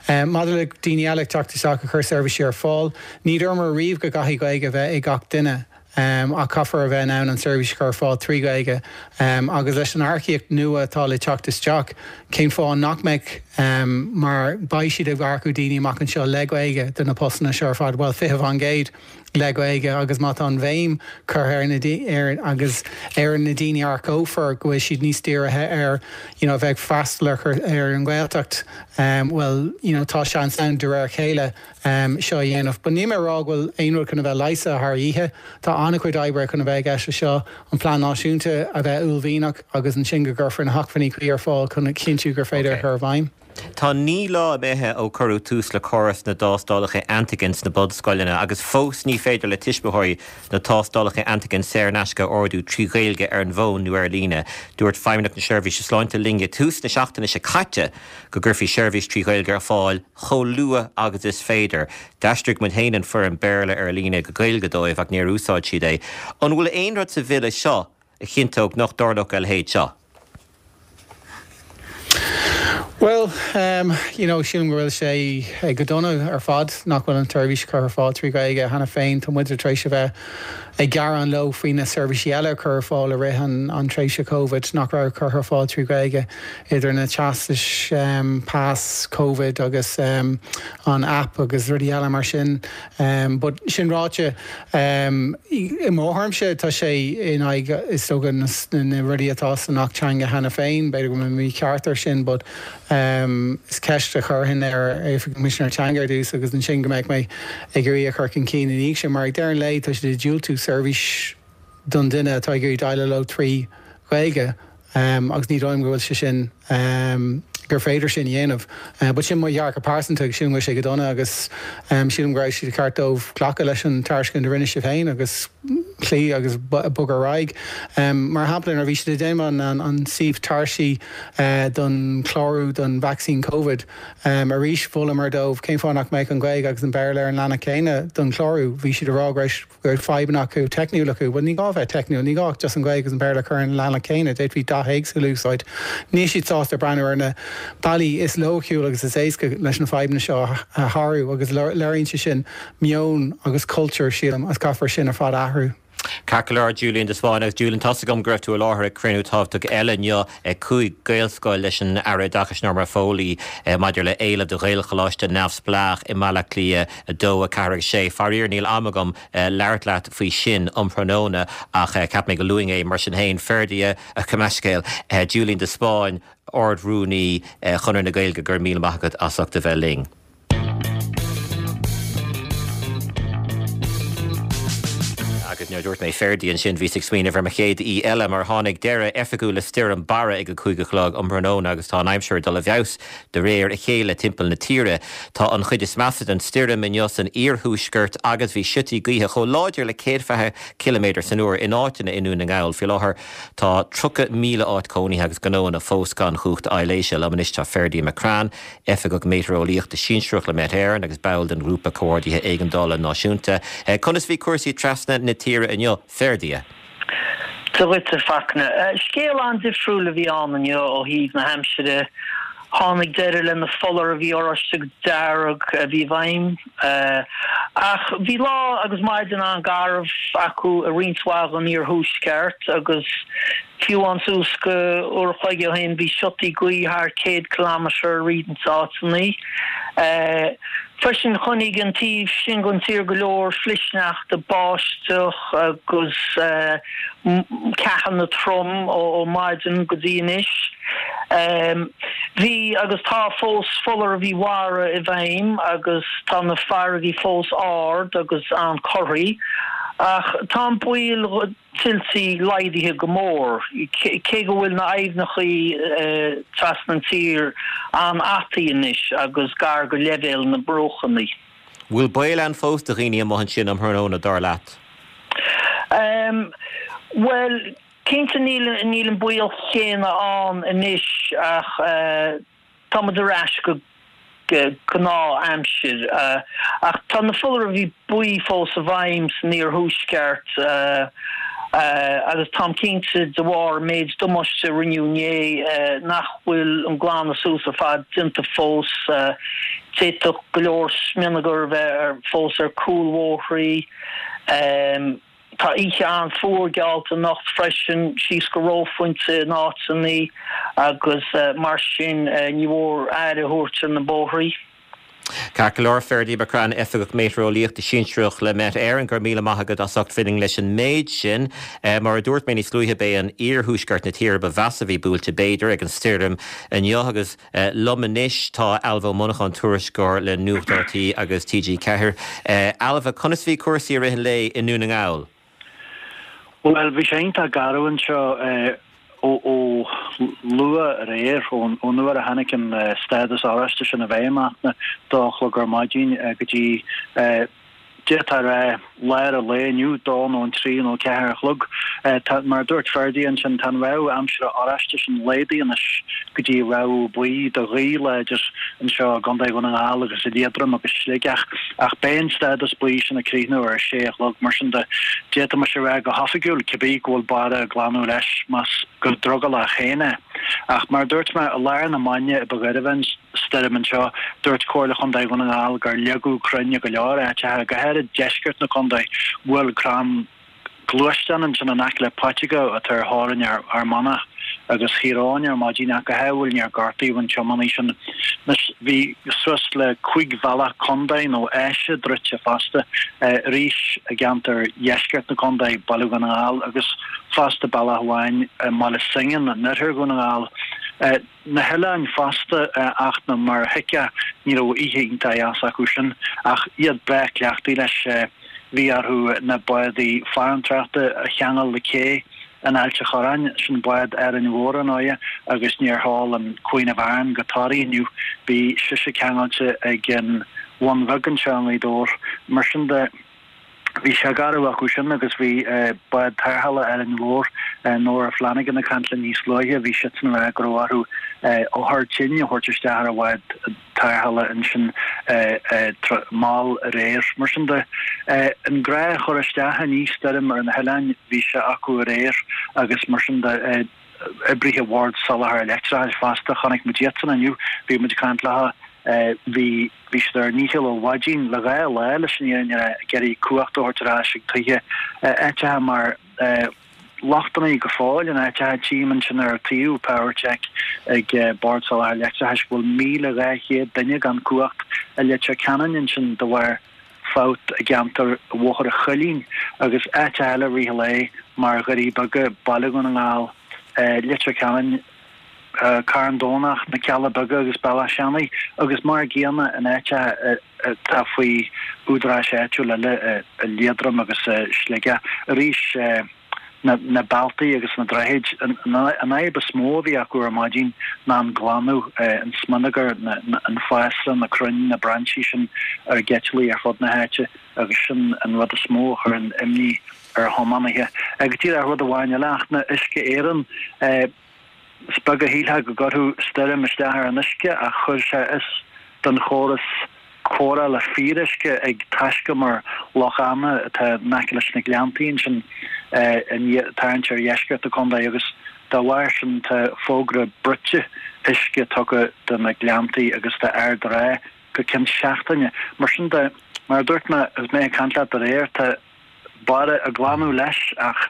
Maidir le daoine eile ag teacht isteach ag cur seirbhísí ar fáil, ní dúramar riamh go gcaithfidh Gaeilge a bheith ag gach duine. Ach caithfear a bheith in ann an tseirbhís a chur ar fáil trí Ghaeilge. Agus leis an earcaíocht nua atá le teacht isteach, cén fáth nach mbeadh? Mar beidh siad ag earcú daoine amach anseo le Gaeilge do na postanna seo ar fad, bhuel, 20% le Gaeilge agus má tá an bhéim curtha ar na ar agus ar na daoine a earcófar go bhfuil siad níos dírithe ar you know a bheith ag freastal ar ar an Ghaeltacht, bhuel, you know tá seans ann de réir a chéile. seo a dhéanamh. But níl mé ag rá go bhfuil aon rud chun a bheith leigheasta thar oíche. Tá an-chuid oibre chun a bheith i gceist leis seo, an plean náisiúnta a bheith uaillmhianach agus ansin go gcuirfear na hacmhainní cuí ar fáil chun a chinntiú gur féidir a chur i bhfeidhm. Tá 9 lá imithe ó cuireadh tús le córas na dtástálacha antigen sna bunscoileanna agus fós ní féidir le tuismitheoirí na tástálacha antigen saor in aisce a ordú trí Ghaeilge ar an bhfón nó ar líne. Dúirt Feidhmeannacht na Seirbhíse Sláinte linn ag tús na seachtaine seo caite go gcuirfí seirbhís trí Ghaeilge ar fáil chomh luath agus is féidir. D'aistrigh muid féin an foirm Béarla ar líne go Gaeilge dóibh ach níor úsáid siad é. An bhfuil aon rud sa bhille seo a chinnteodh nach dtarlódh a leithéid seo? Bhuel, you know, sílim go bhfuil sé go dona ar fad nach bhfuil an tseirbhís curtha ar fáil trí Ghaeilge cheana féin. Tá muid tar éis a bheith ag gearán leo faoi na seirbhísí eile a cuireadh ar fáil i rith an tréimhse Covid nach raibh curtha ar fáil trí Ghaeilge, idir na teastais pas Covid agus an app agus rudaí eile mar sin. But sin ráite, i mo thuairimse tá sé in aghaidh is dócha na rudaí atá san Acht Teanga cheana féin, b'fhéidir go bhfuil mé mícheart ar sin but is ceist a chuirfinn ar Oifig an Choimisinéir Teanga ar dtús agus ansin go mbeadh mé ag iarraidh a chur chun cinn ina dhiaidh sin mar ag deireadh an lae tá siad ag diúltú seirbhís don duine atá ag iarraidh déileáil leo trí Ghaeilge agus ní dóigh liom go bhfuil sé sin, gur féidir sin a dhéanamh. But sin mo dhearcadh pearsanta agus sílim go bhfuil sé go dona agus sílim go raibh sé ceart dóibh glacadh leis an tairiscint a rinne sibh féin agus cloí agus bogadh ar aghaidh. Mar shampla nuair a bhí siad ag déanamh an suíomh tairsí don chlárú don vacsaín Covid, arís mholamar dóibh cén fáth nach mbeadh an Ghaeilge agus an Béarla ar an leathanach céanna don chlárú. Bhí siad ag rá go raibh go raibh fadhbanna acu, teicniúil acu. Bhuel, ní gá a bheith teicniúil, ní gá ach just an Ghaeilge agus an Béarla a chur ar an leathanach céanna, d'fhéadfaí dath éagsúil a úsáid. Níl siad sásta breathnú ar na bealaí is loighciúil agus is éasca leis na fadhbanna seo a shárú agus léiríonn sé sin meon agus cultúr, sílim, agus caithfear sin ar fad a athrú. Ceart go leor, Julian de Spáinn. Agus Julian, tá's agam go raibh tú i láthair ag cruinniú tábhachtach eile inniu ag 5 Gaelscoil leis an Aire Oideachais Norma Foley maidir le éileamh do Ghaelcholáiste neamhspleách i mBaile Átha Cliath 2, 4 agus 6. Faraor níl am agam labhairt leat faoi sin um thráthnóna ach cheap mé go luafainn é mar sin féin. Ferdia, gabh mo leithscéal, Julian de Spáinn, Ard-Rúnaí Chonradh na Gaeilge, go raibh míle maith agat as ucht a bheith linn. Agus nuair a dúirt mé Ferdia ansin bhíos ag smaoineamh ar mo chéad aoi eile mar tháinig deireadh oifigiúil le stoirm Barra ag a 5 a chlog um thráthnóna agus tá an aimsir ag dul i bhfeabhas De réir a chéile timpeall na tíre, tá an chuid is measa den stoirm inniu san iarthuaisceart agus bhí siotaí gaoithe chomh láidir le 120 ciliméadar san uair in áiteanna i nDún na nGall. Faoi láthair tá 30,000 áit cónaithe agus gnóanna fós gan chumhacht aibhléise. Liom anois tá Ferdia McCrann, Oifigeach Meitéareolaíochta Sinsearach le Met Éireann agus ball den Ghrúpa Comhordaithe Éigeandála Náisiúnta. Conas a bhí cúrsaí trasna na tíre inniu, Ferdia? Dia dhuit, a Fachtna. Scéal an-difriúil a bhí ann inniu ó thaobh na haimsire. Tháinig deireadh le na foláirimh oráiste agus dearg a bhí i bhfeidhm. Ach bhí lá agus maidin an-gharbh acu i roinnt mhaith den iarthuaisceart agus fiú amháin suas go uair a chloig ó shin bhí siotaí gaoithe thar 100 kilometre i roinnt áiteanna. Freisin choinnigh an taobh sin den tír go leor flichshneachta, báisteach agus ceathanna trom ó maidin go dtí anois. Bhí agus tá fós foláirimh mhara i bhfeidhm agus tá na farraigí fós ard agus an-corraithe ach tá an baol tuiltí laghdaithe go mór, cé go bhfuil na aibhneachaí trasna an tír an-fhataí anois agus gar go leibhéal na mbruachanna. Bhfuil baol ann fós do dhaoine amuigh ansin um thráthnóna, dar leat? Bhuel, cinnte níl an baol chéanna ann anois ach tá muid ar ais go gnáth-aimsir. Ach tá na foláirimh buí fós i bhfeidhm san iarthuaisceart agus táim cinnte de bharr an méid damáiste a rinneadh inné nach bhfuil an glanadh suas ar fad déanta fós. D'fhéadfadh go leor smionagar a bheith fós ar cúlbhóithrí. Tá oíche an-fhuar geallta anocht freisin, síos go reophointe in áiteanna agus mar sin ní mór aire a thabhairt ar na bóithrí. Ceart go leor, Ferdia McCrann, Oifigeach Meitéareolaíochta Sinsearach le Met Éireann, go raibh míle maith agat as ucht bheith linn leis an méid sin. Mar a dúirt mé níos luaithe, b'é an iarthuaisceart na tíre ba mheasa a bhí buailte, b'fhéidir, ag an stoirm inniu agus Liom anois tá Ailbhe Ó Monacháin, tuairisceoir le Nuacht RTÉ agus TG4. Ailbhe, conas a bhí cúrsaí i rith an lae i nDún na nGall? Bhuel, bhí sé iontach garbh anseo. Ó luath aréir, ón uair a tháinig an stádas oráiste sin i bhfeidhm, a dó a chlog ar maidin go dtí, d'fhéadfá a rá, lár an lae inniu, dó nó an trí nó ceathair a chlog. Tá, mar a dúirt Ferdie ansin, tá an rabhadh aimsire oráiste sin laghdaithe anois go dtí rabhadh buí do ghaoth láidir anseo i gContae Dhún na nGall agus i Liatroim agus Sligeach. Ach beidh an stádas buí sin ag críochnú ar a sé a chlog, mar sin de, d'fhéadfaimis a rá go hoifigiúil, cibé, go bhfuil Barra ag glanadh leis, más go drogallach féin é. Ach mar a dúirt mé, i lár na maidne ba ghairbhe an stoirm anseo, dúirt Comhairle Chontae Dhún na nGall gur leagadh crainn i go leor áiteacha, go háirid deisceart na contae, bhuail crann gluaisteán ansin in aice le Paiteagó atá ar theorainn Fhear Manach agus Thír Eoghain ar maidin ach go hádhúil níor gortaíodh an tiománaí sin. Anois bhí suas le 5 bhealach contae nó áise druidte fosta, arís i gceantar dheisceart na contae, Baile Dhún na nGall, agus fosta bealach amháin i mBaile Suingean in oirthear Dhún na nGall. Na hoileáin fosta ach ná mar a thuigfeá ní raibh oíche iontach dheas acu sin ach iad breá cleachtaithe leis. Bhí orthu na bádaí farantóireachta a cheangal le cé in Ailt a' Chorráin, sin bád Árainn Mhór ar ndóighe, agus níor sheol an Queen of Aran go Toraigh inniu. Bhí sise ceangailte ag an Bhun Bheag anseo i nGaoth Dobhair. Mar sin de. Bhí sé garbh acu sin agus bhí bád tarrthála Árainn Mhór, Nora Flanagan ag caint linn níos luaithe, bhí siadsan ag rá go raibh orthu othar tinn a thabhairt isteach ar an bhád tarrthála ansin mall aréir. Mar sin de, an gnáth-chur isteach i ndiaidh stoirm ar na hoileáin, bhí sé acu aréir agus mar sin de, oibrithe Bhord Soláthair Leictreachais fosta, chonaic muid iadsan inniu, bhí muid ag caint leo, bhí bhí siad ar a ndícheall ó mhaidin le dhá lá leis an fhírinne a rá, ag iarraidh cumhacht a thabhairt ar ais ag tithe áiteacha mar lochtanna go fóill in áiteacha, tchím ansin ar shuíomh PowerCheck ag Bord Soláthair Leictreachais go bhfuil 1,200 duine gan cumhacht i Leitir Ceanainn ansin de bharr fabht i gceantar Bhóthar an Choillín agus áiteacha eile i rith an lae mar Dhoirí Beaga, Baile Dhún na nGall, Leitir Ceanainn, Carn Domhnach, Na Cealla Beaga agus Bealach Seanaidh agus mar a gcéanna in áiteacha atá faoi údaráis áitiúil eile i Liatroim agus i Sligeach. Arís. na bealtaí agus na droichid. An fhadhb is mó a bhí acu ar maidin ná an glanadh, an smionagar, an fásra, na crainn, na brainsí sin ar geiteallaigh ar fud na háite agus sin an rud is mó a chuireann imní ar thiománaithe. Go díreach rud amháin eile ach na Uisce Éireann, Is beag a shílfeá go gcuirfeadh stoirm isteach ar an uisce ach chuir sé as don chóras cóireála fíoruisce ag taiscumar Loch Anna atá in aice leis na Gleanntaí ansin tarraingt ar dheisceart na contae agus dá bharr sin tá fógra bruite uisce tugtha do na Gleanntaí agus d'Ard an Rátha go ceann seachtaine. Mar sin de, mar a dúirt mé agus mé ag caint leat aréir, tá. Barra ag glanadh leis ach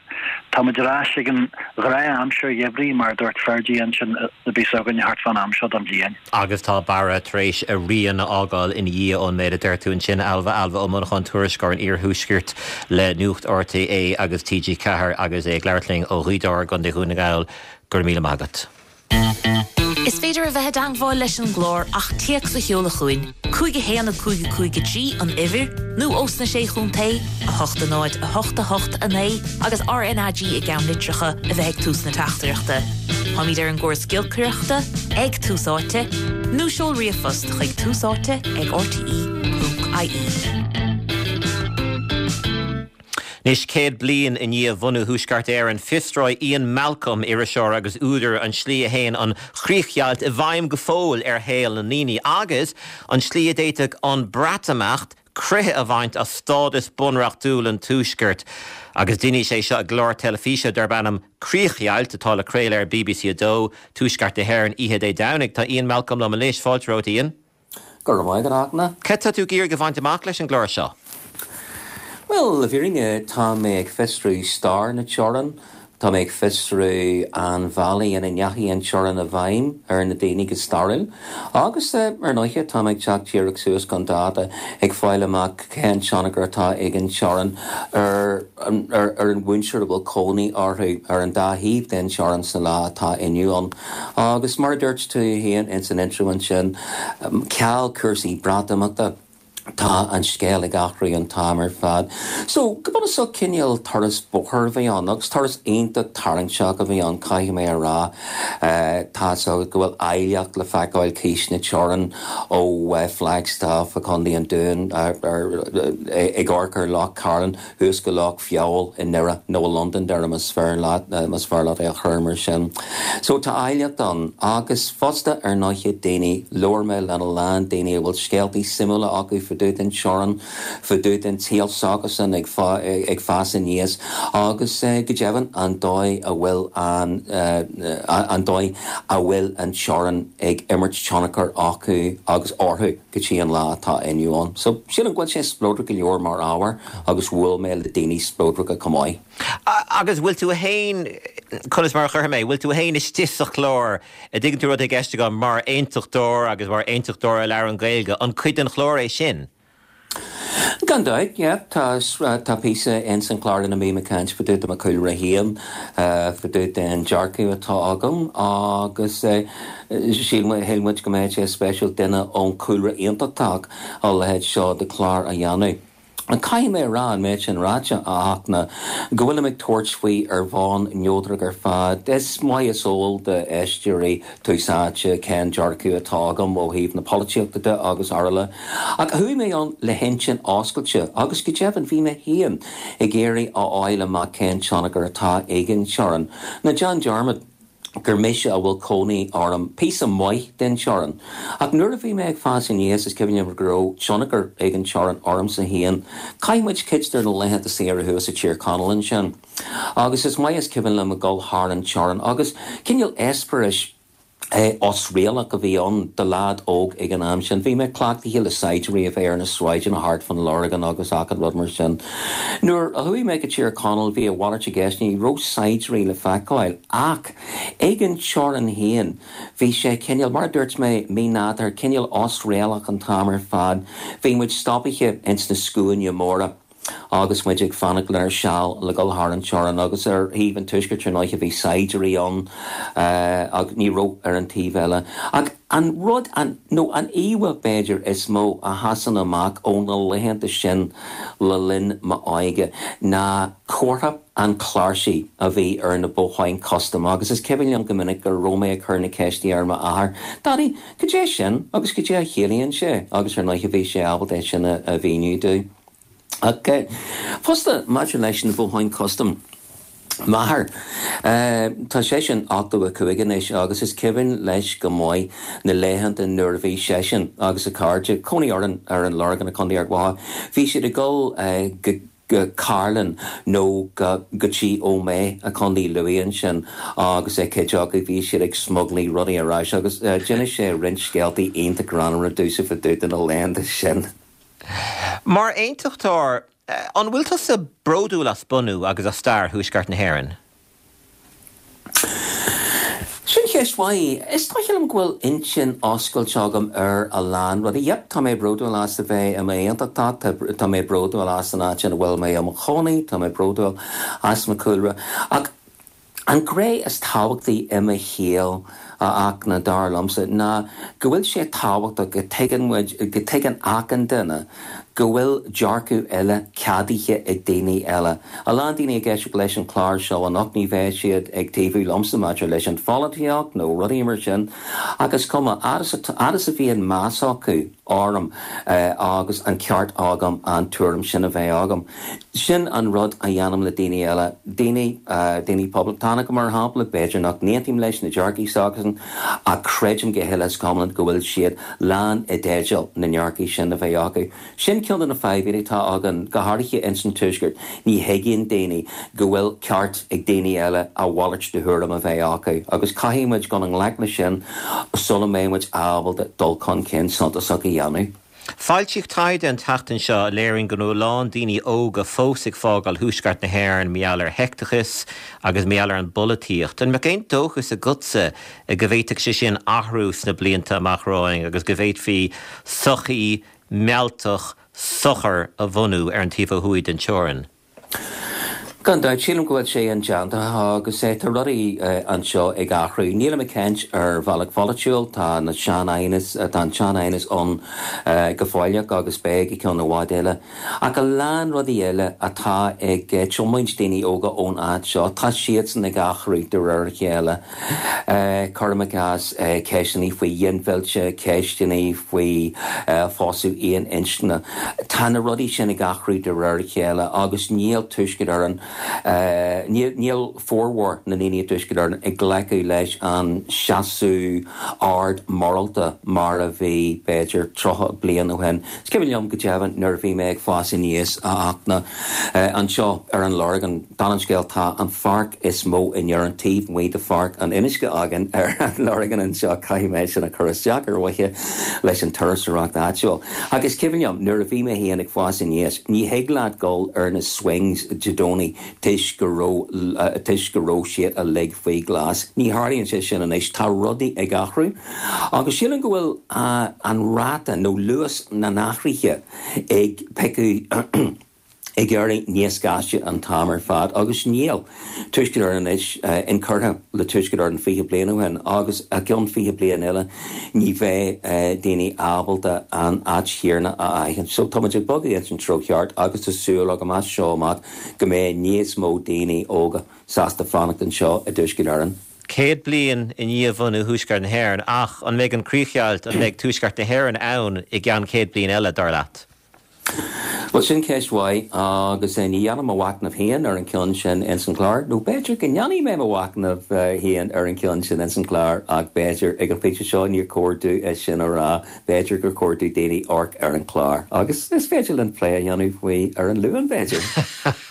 tá muid ar ais ag an ghnáth-aimsir gheimhridh mar a dúirt Fergie ansin a bhíos againn thart fán am seo den bhliain. Agus tá Barra tar éis a rian a fhágáil ina dhiaidh ón méid a deir tú ansin, Ailbhe. Ailbhe Ó Monacháin, tuairisceoir an Iarthuaiscirt le Nuacht RTÉ agus TG4 agus é ag labhairt linn ó Ghaoth Dobhair i gContae Dhún na nGall. Go raibh míle maith agat. Is féidir a bheith i dteangmháil leis an gclár ach téacs a sheoladh chugainn, 5 1 5 5 3 an uimhir, nó ós na Sé Chontae, 8 0 8 8 9 agus RnaG i gceannlitreacha a bheith ag tús na teachtaireachta. Táimid ar an gcóras giolcaireachta, ag Tús Áite, nó seol ríomhphost chuig túsáite ag rte.ie. Anois, 100 bliain i ndiaidh bhunú Thuaisceart Éireann, fiosróidh Ian Malcolm, iriseoir agus údar, an tslí a théann an chríochdheighilt i bhfeidhm go fóill ar shaol na ndaoine, agus an tslí a d'fhéadfadh an Breatimeacht croitheadh a bhaint as stádas bunreachtúil an Tuaiscirt. Agus déanfaidh sé seo i gclár teilifíse darb ainm Críochdheighilt, atá le craoladh ar bbc 2, Tuaisceart na hÉireann, oíche Dé Domhnaigh. Tá Ian Malcolm liom anois. Fáilte romhat, Ian. Go raibh maith agat, a Fhachtna. Cad tá tú ag iarraidh a bhaint amach leis an gclár seo? Bhuel, le fírinne, tá mé ag fiosrú stair na teorann. Tá mé ag fiosrú an bhealaigh ina ndeachaigh an teorainn i bhfeidhm ar na daoine go stairiúil. Agus, ar ndóiche, tá mé ag teacht díreach suas chun dáta, ag fáil amach cén tionchar atá ag an teorainn ar ar an mhuintir a bhfuil cónaí orthu ar an dá thaobh den teorainn sa lá atá inniu ann. Agus mar a dúirt tú féin ins an intro ansin, ceal cúrsaí Breatimeachta. Tá an scéal ag athrú an t-am ar fad. So, go bunúsach, cineál turas bóthair a bhí ann, agus turas iontach tarraingteach a bhí ann, caithfidh mé a rá. Tá's agat go bhfuil áilleacht le feiceáil cíos na teorann ó Flagstaff i Contae an Dúin, ag amharc ar Loch Cairlinn, thuas go Loch Feabhail i nDoire, nó i Londonderry más fearr leat, más fearr leat é a chur mar sin. So tá áilleacht ann. Agus fosta, ar ndóiche, daoine, labhair mé lena lán daoine a bhfuil scéaltaí suimiúla acu fá dtaobh den teorainn, fá dtaobh den tsaol s'acusan ag ag fás aníos agus go deimhin an dóigh a bhfuil an an dóigh a bhfuil an teorainn ag imirt tionchar acu agus orthu go dtí an lá atá inniu ann. So sílim go bhfuil sé spleodrach go leor mar ábhar. agus bhuail mé le daoine spleodracha chomh maith. Agus bhfuil tú fhéin, conas mar a chuirfidh mé, bhfuil tú fhéin istigh sa chlár, a dtuigeann tú rud i gceist agam, mar aontachtóir agus mar aontachtóir a labhrann Gaeilge, an cuid den chlár é sin? Gan dabht, yeah. Tá, tá píosa ins an chlár ina mbím ag caint fá dtaobh de mo chúlra féin, fá dtaobh den dearcadh atá agam agus shíl muid go mbeadh sé spéisiúil duine ón chúlra aontachtach a leithéid seo de chlár a dhéanamh. Caithfidh mé a rá, an méid sin ráite, a Fhachtna, go bhfuilim ag tabhairt faoi ar bhonn neodrach ar fad. Is maith is eol d'éisteoirí Tús Áite cén dearcadh atá agam ó thaobh na polaitíochta de agus araile. Ach chuaigh mé ann le hintinn oscailte agus go deimhin bhí mé féin ag iarraidh a fháil amach cén tionchar atá ag an teorainn. Ná déan dearmad. gur mise a bhfuil cónaí orm píosa maith den teorainn. Ach nuair a bhí mé ag fás aníos is cuimhin liom go raibh tionchar ag an teorainn ormsa féin. Chaith muid cuid de na laethanta saoire thuas i Tír Chonaill ansin. Agus is maith is cuimhin liom ag dul thar an teorainn agus cineál eispéiris osréalach a bhí ann do leaid óg ag an am sin. Bhí mé cleachtaithe le saighdiúirí a bheith ar na sráideanna thart fán Lorgain agus achan rud mar sin. Nuair a chuaigh mé go Tír Chonaill bhí a mhalairt i gceist, ní raibh saighdiúirí le feiceáil ach ag an teorainn féin bhí sé cineál, mar a dúirt mé, mínádúrtha, cineál osréalach an t-am ar fad. Bhí muid stopaithe ins na scuaine móra agus muid ag fanacht lenár seal le dhul thar an teorainn agus ar thaobh an tuaiscirt ar ndóighe bhí saighdiúirí ann ach ní raibh ar an taobh eile. Ach an rud, an, nó an íomhá b'fhéidir is mó a sheasann amach ó na laethanta sin le linn m'óige ná comhartha an chláirsigh a bhí ar na botháin custaim agus is cuimhin liom go minic go raibh mé ag cur na ceiste ar m'athair, Daddy, cad é sin agus cad é a chiallaíonn sé? Agus ar ndóighe bhí sé ábalta é sin a mhíniú domh. Ach fosta, maidir leis na botháin custaim, m'athair, tá seisean 85 anois agus is cuimhin leis go maith na laethanta nuair a bhí seisean agus a chairde, cónaí orainn ar an Lorgain i Contae Ard Mhacha, bhí siad ag dul go go Cairlinn nó go go dtí Ó Méith i Contae Lú ansin agus cuid acu bhí siad ag smuglaí rudaí ar ais agus d'inis sé roinnt scéaltaí iontach greannmhara domhsa fá dtaobh de na laethanta sin. Mar aontachtóir, an bhfuil tusa bródúil as bunú agus as stair Thuaisceart na hÉireann? Sin ceist mhaith. Is dóiche liom go bhfuil intinn oscailte agam ar a lán rudaí. Yep, tá mé bródúil as a bheith i m'aontachtach, tá mé bródúil as an áit ina bhfuil mé i mo chónaí, tá mé bródúil as mo chúlra. Ach An ghné is tábhachtaí i mo shaol, a Fhachtna, dar liomsa, ná go bhfuil sé tábhachtach go dtuigeann muid, go dtuigeann achan duine go bhfuil dearcadh eile ceadaithe ag daoine eile. A lán daoine ag éisteacht leis an chlár seo anocht, ní bheidh siad ag taobhú liomsa maidir leis an pholaitíocht nó rudaí mar sin, ach is cuma, fhad is, fhad is a bhíonn meas acu orm agus an ceart agam an tuairim sin a bheith agam. Sin an rud a dhéanaim le daoine eile, daoine, daoine poblachtánacha mar shampla, b'fhéidir nach n-aontaím leis na dearcaí s'acusan ach creidim go huile is go hiomlán go bhfuil siad lán i dteideal na ndearcaí sin a bheith acu. Sin ceann de na fadhbanna atá againn, go háirithe ins an Tuaisceart, ní thuigeann daoine go bhfuil ceart ag daoine eile a mhalairt de thuairim a bheith acu agus caithfidh muid dul i ngleic leis sin sula mbeidh muid ábalta dul chun cinn suntasach a dhéanamh. Foilsíodh taighde an tseachtain seo a léiríonn go bhfuil a lán daoine óga fós ag fágáil thuaisceart na hÉireann mar gheall ar sheicteachas agus mar gheall ar an bpolaitíocht. An mbeadh aon dóchas agatsa go bhféadfadh sé sin athrú sna blianta amach romhainn agus go bhféadfaí sochaí mealltach socair a bhunú ar an taobh ó thuaidh den teorainn? Gan dabht, sílim go bhfuil sé indéanta agus tá rudaí anseo ag athrú. Nílim ag caint ar bhealach pholaitiúil, tá na sean-aighneas, tá an sean-aighneas ann go fóilleach agus beidh go ceann i bhfad eile. Ach a lán rudaí eile atá ag tiomáint daoine óga ón áit seo, tá siadsan ag athrú de réir a chéile. Cuirim i gcás ceisteanna faoi ghinmhilleadh, ceisteanna faoi phósadh aon inscne. Tá na rudaí sin ag athrú de réir a chéile agus níl Tuaisceart Éireann, níl formhór na ndaoine i dTuaisceart Éireann ag glacadh leis an seasamh ard morálta mar a bhí, b'fhéidir, 30 bliain ó shin. Is cuimhin liom go deimhin nuair a bhí mé ag fás aníos, a Fhachtna, anseo ar an Lorgain, Dála an scéil, tá an pháirc is mó in Éirinn taobh amuigh de Pháirc an Fhionnuisce againn ar an Lorgain anseo, caithfidh mé sin a chur isteach ar mhaithe leis an turasóireacht áitiúil. Ach is cuimhin liom nuair a bhí mé féin ag fás aníos, ní thig leat dul ar na swings Dé Domhnaigh toisc go raibh toisc go raibh siad uilig faoi ghlas. Ní tharlaíonn sé sin anois, tá rudaí ag athrú agus sílim go bhfuil an ráta nó luas na n-athruithe ag piocadh ag éirí níos gaiste an t-am ar fad agus níl Tuaisceart Éireann anois inchurtha le Tuaisceart Éireann 20 bliain ó shin agus i gceann 20 bliain eile ní bheidh daoine ábalta an áit chéanna a aithint. So tá muid ag bogadh ins an treo cheart agus tá súil agam as seo amach go mbeidh níos mó daoine óga sásta fanacht anseo i dTuaisceart Éireann. 100 bliain i ndiaidh bhunú Thuaisceart na hÉireann ach an mbeidh an críochdheighilt, an mbeidh Tuaisceart na hÉireann ann i gceann 100 bliain eile, dar leat? Bhuel, sin ceist mhaith agus ní dhéanfaidh mo mhachnamh féin ar an gceann sin ins an chlár, nó b'fhéidir go ndéanfaidh mé mo mhachnamh féin ar an gceann sin ins an chlár ach b'fhéidir ag an phointe seo níor chóir domh é sin a rá, b'fhéidir gur chóir do daoine amharc ar an chlár agus is féidir linn plé a dhéanamh faoi ar an Luan, b'fhéidir.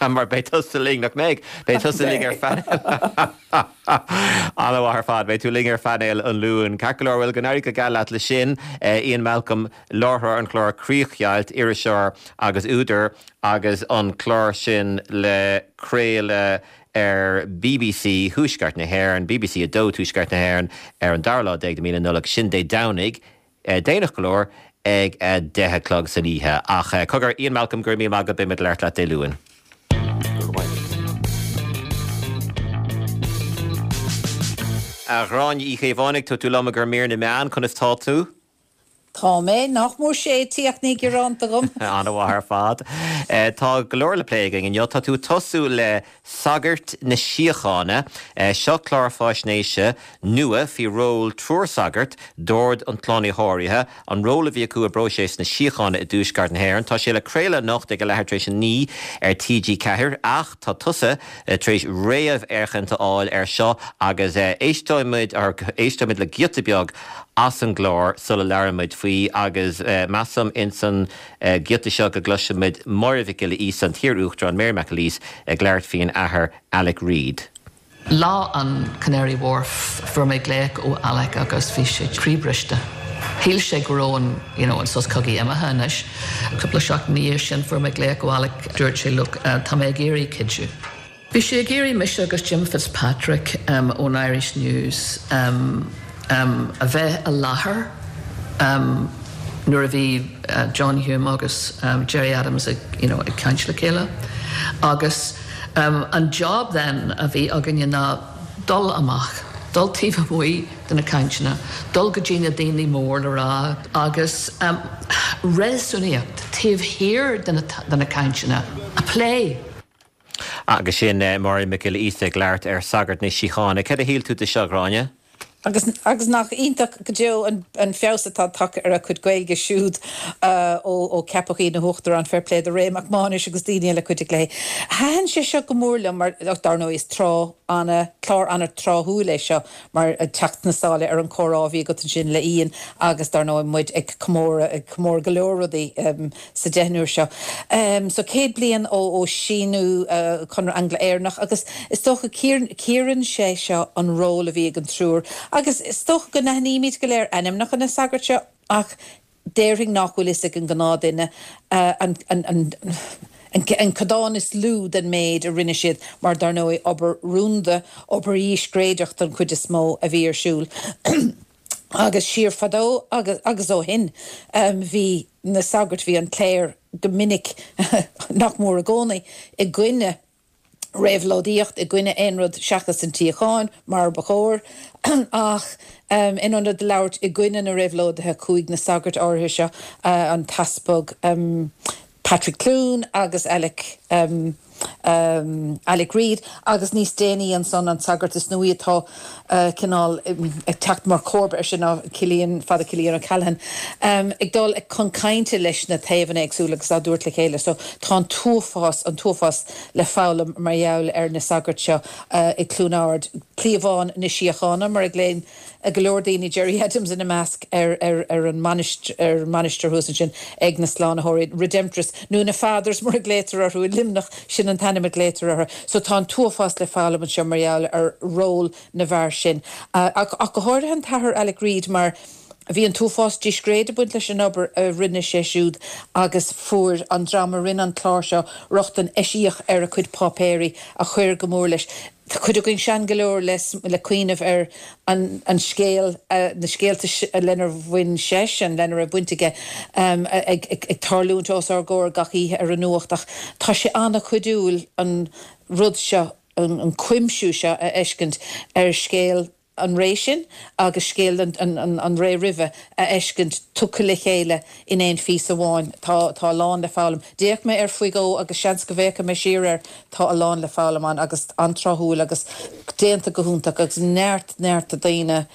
Mar beidh tusa linn, nach mbeidh? Beidh tusa linn ar phainéal. An-mhaith ar fad. Beidh tú linn ar phainéal an Luain. Ceart go leor, bhuel, go n-éirí go geal leat le sin, Ian Malcolm. Láithreoir an chláir Críochdheighilt, iriseoir agus údar agus an clár sin le craoladh ar bbc Thuaisceart na hÉireann, bbc 2 Tuaisceart na hÉireann, ar an dara lá déag de mí na Nollag, sin Dé Domhnaigh, déanach go leor, ag a 10 a chlog san oíche. Ach cogar, Ian Malcolm, go raibh míle maith agat, beidh muid ag labhairt leat Dé Luain. Go raibh maith agat. A Ghráinne Uí Chaomhánaigh, tá tú liom i gcomhair mír na meán, conas tá tú? Tá mé, nach mór séidte ach ní gearán agam. An-mhaith ar fad. Tá go leor le plé againn inniu. Tá tú ag tosú le Sagairt na Síochána. Seo clár faisnéise nua faoi ról triúr sagart d'Ord an tSlánaitheora, an ról a bhí acu i bpróiseas na síochána i dTuaisceart na hÉireann. Tá sé le craoladh anocht ag a leathuair tar éis a 9 ar TG4 ach tá tusa tar éis réamhfhéachaint a fháil air seo agus éisteoidh muid, éisteoidh muid le giota beag as an gclár sula labhraíonn muid faoi agus measaim ins an giota seo go gcloisfidh muid Máire Mhic Giolla Íosa, an t-iar-Uachtarán Mary McAleese ag labhairt faoin Athair Alec Reid. Lá an Canary Wharf fuair mé glaoch ó Alec agus bhí sé croíbhriste. Shíl sé go raibh an, you know, an sos cogaidh imithe anois. Cúpla seachtain ina dhiaidh sin fuair mé glaoch ó Alec, dúirt sé look, tá mé ag iarraidh cuidiú. Bhí sé ag iarraidh mise agus Jim Fitzpatrick ón Irish News a bheith i láthair nuair a bhí John Hume agus Gerry Adams ag you know ag caint le chéile agus an job then a bhí againne ná dul amach, dul taobh amuigh de na cainteanna, dul go dtí na daoine mór le rá agus réasúnaíocht taobh thiar de na cainteanna a phlé. Agus sin Máire Mhic Giolla Íosa ag labhairt ar Sagairt na Síochána. Céard a shíl tú de seo, a Ghráinne? Agus, agus nach iontach go deo an, an feabhas atá tagtha ar a cuid Gaeilge siúd ó, ó ceapadh í ina huachtarán, fair play do Ray Mac Mánais agus daoine eile a chuidigh léi. Thaitin sé seo go mór liom mar, dar ndóigh is tráth ana, clár ana-tráthúil é seo mar ag teacht sna sála ar an chomhrá a bhí agat ansin le Ian agus dar ndóigh muid ag comóradh, ag comóradh go leor rudaí sa deichniúr seo. So 100 bliain ó ó síniú Conradh Angla-Éireannach agus is dócha cíorann sé seo an ról a bhí ag an triúr agus is dócha go n-aithnímid go léir ainmneacha na sagart seo ach déarfainn nach bhfuil fhios ag an gnáthduine an an an an codán is lú den méid a rinne siad mar dar ndóigh obair rúnda, obair dhíscréideach don chuid is mó a bhí ar siúl. Agus siar fadó agus agus ó shin bhí na sagairt, bhí an chléir go minic, nach mór i gcónaí, i gcoinne. Réabhlóidíocht i gcoinne aon rud seachas an tsíocháin, mar ba chóir, ach in ionad labhairt i gcoinne na réabhlóidithe chuaigh na sagairt áirithe seo, an tEaspag Patrick Clune agus Alec Alec Reid agus níos déanaí ansan an sagart is nuaí atá cineál ag teacht mar chomharba air sin ná Cillian, Father Cillian O'Callaghan, ag dul chun cainte leis na taobhanna éagsúla agus á dtabhairt le chéile. So tá an t-uafás, an t-uafás le foghlaim mar gheall ar na sagairt seo i gCluain Ard, cliabhán na síochána mar a ghlaonn go leor daoine, Gerry Adams ina measc, ar ar an ar an mainistir thuas ansin ag na Slánaitheoirí, Redemptorists, nó na Fathers mar a ghlaotar orthu i Luimneach, sin an t-ainm a ghlaotar orthu. So tá an t-uafás le foghlaim anseo mar gheall ar ról na bhfear sin. Ach go háirithe an tAthair Alec Reid mar bhí an t-uafás discréid ag baint leis an obair a rinne sé siúd agus fuair an dream a rinne an clár seo rochtain eisiach ar a chuid páipéirí a chuir go mór leis. Tá cuid againn sean go leor le cuimhneamh ar an scéal, na scéalta lenar bhain seisean, lena raibh baint aige, ag tarlúint os ár gcomhair gach oíche ar an nuacht ach tá sé an-chuidiúil an rud seo, an cuimsiú seo a fheiscint ar scéal an ré sin agus scéal an ré roimhe a fheiscint tugtha le chéile in aon phíosa amháin. Tá tá a lán le foghlaim. D'fhéach mé air faoi dhó agus seans go bhféachfaidh mé siar air. Tá a lán le foghlaim ann agus an-tráthúil agus déanta go hiontach agus neart neart daoine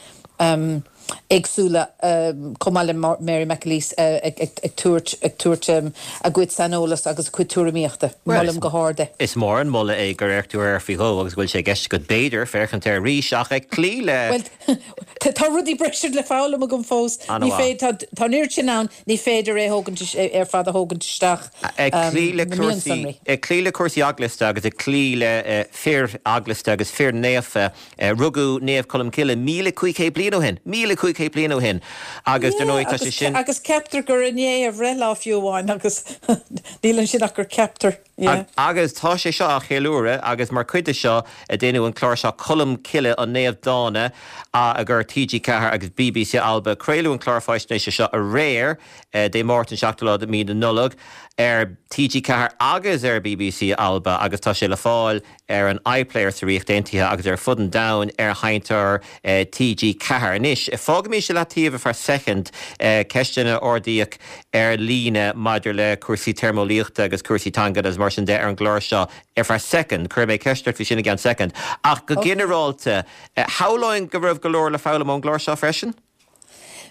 éagsúla chomh maith le Mary McAleese ag tabhairt ag tabhairt a gcuid saineolas agus a cuid tuairimíochta. Molaim go hard é. Is mór an moladh é gur fhéach tú air faoi dhó agus go bhfuil sé i gceist agat b'fhéidir féachaint air arís ach ag cloí le Bhuel, Tá rudaí breise le foghlaim agam fós. Ní féidir, tá an oiread sin ann, ní féidir é thógaint, ar fad a thógaint isteach, Ag cloí le cúrsaí, ag cloí le cúrsaí eaglasta agus ag cloí le fir eaglasta agus fir naofa, rugadh Naomh Colm Cille 1,500 bliain ó shin, 1,500 bliain ó shin agus dar ndóigh tá sé sin. Agus ceaptar gur inné a bhreithlá fiú amháin agus níl ansin ach gur ceaptar. Yeah. Agus tá sé seo á cheiliúradh agus mar chuid de seo déanadh an clár seo Colm Cille, an Naomh Dána a chuir TG4 agus BBC Alba. Craoladh an clár faisnéise seo aréir, Dé Máirt an 7ú lá de mhí na Nollag, ar TG4 agus ar BBC Alba agus tá sé le fáil ar an iPlayer sa Ríocht Aontaithe agus ar fud an domhain ar sheinnteoir TG4. Anois, fágaimis i leataobh ar feadh soicind ceisteanna a ardaíodh ar líne maidir le cúrsaí téarmeolaíochta agus cúrsaí teanga agus mar sin de ar an gclár seo ar feadh soicind. Cuirfidh mé ceist ort faoi sin i gceann soicind. Ach go ginearálta, shamhlóinn go raibh go leor le foghlaim ón gclár seo freisin?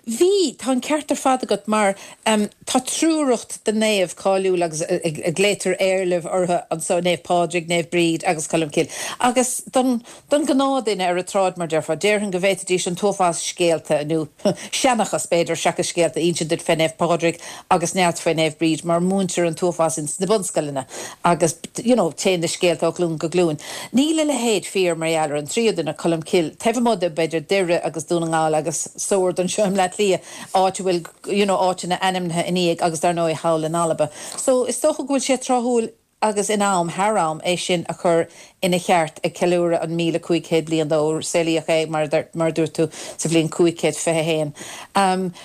Bhí, tá an ceart ar fad agat mar tá triúracht de naoimh cáiliúil agus a glaotar éarlaimh orthu anso, Naomh Pádraig, Naomh Bríd agus Colm Cille. Agus don don ghnáthduine ar an tsráid mar déarfá, déarfainn go bhféadfaidís an t-uafás scéalta, nó seanchas b'fhéidir seachas scéalta, a insint duit fé Naomh Pádraig agus neart faoi Naomh Bríd mar múintear an t-uafás ins na bunscoileanna agus you know téann na scéalta ó ghlúin go glúin. Níl a leithéid fíor mar gheall ar an tríú duine, Colm Cille, taobh amuigh de b'fhéidir Doire agus Dún na nGall agus Sord anseo i mBleá Cliath, áit a bhfuil you know áiteanna ainmnithe ina dhiaidh agus dar ndóigh thall in Alba. So is dócha go bhfuil sé tráthúil agus in am, thar am, é sin a chur ina cheart ag ceiliúradh an 1,500 bliain dó, saolaíodh é, mar mar a dúirt tú, sa bhliain 521.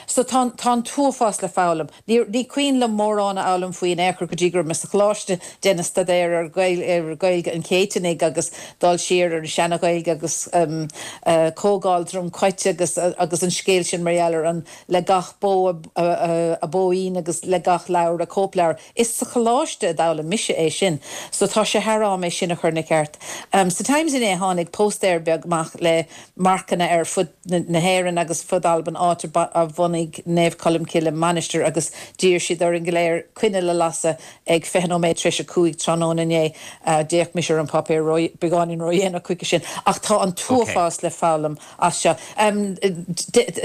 So tá tá an t-uafás le foghlaim. Ní ní cuimhin liom mórán a fhoghlaim faoi in aon chor go dtí go raibh mé sa choláiste, déanamh staidéir ar ar Ghaeilge an Chéitinnigh agus dul siar ar an seana-Ghaeilge agus Comhdháil Dhroim Cait agus agus an scéal sin mar gheall ar an le gach bó a bóín agus le gach leabhar a cóipleabhar. Is sa choláiste a d'fhoghlaim mise é sin so tá sé thar am é sin a chur ina cheart. Sa Times inné tháinig póstaer beag amach le marcanna ar fud na hÉireann agus fud Alban áit a bhunaigh Naomh Colm Cille mainistir agus d'iarr siad orainn go léir coinneal a lasadh ag 20 nóiméad tar éis 5 tráthnóna inné. D'fhéach mise ar an páipéar beagáinín ródhéanach chuige sin ach tá an t-uafás le foghlaim as seo.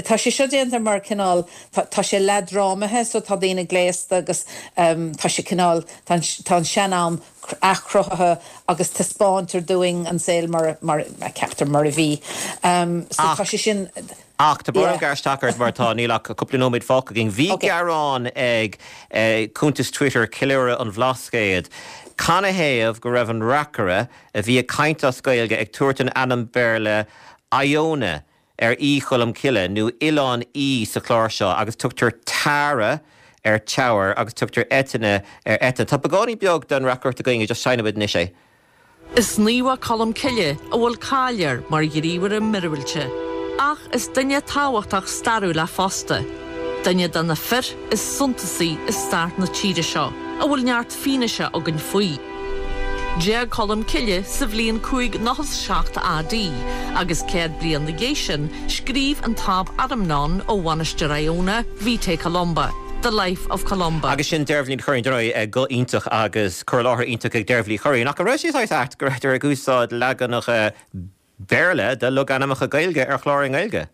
Tá sé seo déanta mar cineál, tá sé leathdhrámaithe so tá daoine gléasta agus tá sé cineál, tá an sean-am athchruthaithe agus taispeántar dúinn an saol mar, mar a ceaptar mar a bhí. So tá sé sin, Ach tá brón orm gearradh isteach ort mar tá, níl ach cúpla nóiméad fágtha againn. Bhí gearán ag cuntas Twitter Ceiliúradh an Bhlascaoid canathaobh go raibh an reacaire a bhí ag caint as Gaeilge ag tabhairt an ainm Béarla Iona ar Í Cholm Cille nó Oileán Í sa chlár seo agus tugtar Tara ar Teamhair agus tugtar Eithne ar Eithne. Tá beagáinín beag den reacaireacht againn, just seinnfidh muid anois é. Is naomh é Colm Cille a bhfuil cáil air mar ghníomhaire míorúilte. Ach is duine tábhachtach stairiúil é fosta, duine de na fir is suntasaí i stair na tíre seo, a bhfuil neart fianaise againn faoi. D'éag Colm Cille sa bhliain 597 AD agus 100 bliain 'na dhiaidh sin scríobh an tAb Adamnán ó Mhainistir Iona, Vitae Columbae, The Life of Columba. Agus sin Deirbhile Ní Churraoin, dar ndóigh, guth iontach agus cur i láthair iontach ag Deirbhile Uí Churraoin. Ach an raibh sé saghas ait go rabhadar ag úsáid leaganacha Béarla de logainmneacha Gaeilge ar chlár i nGaeilge?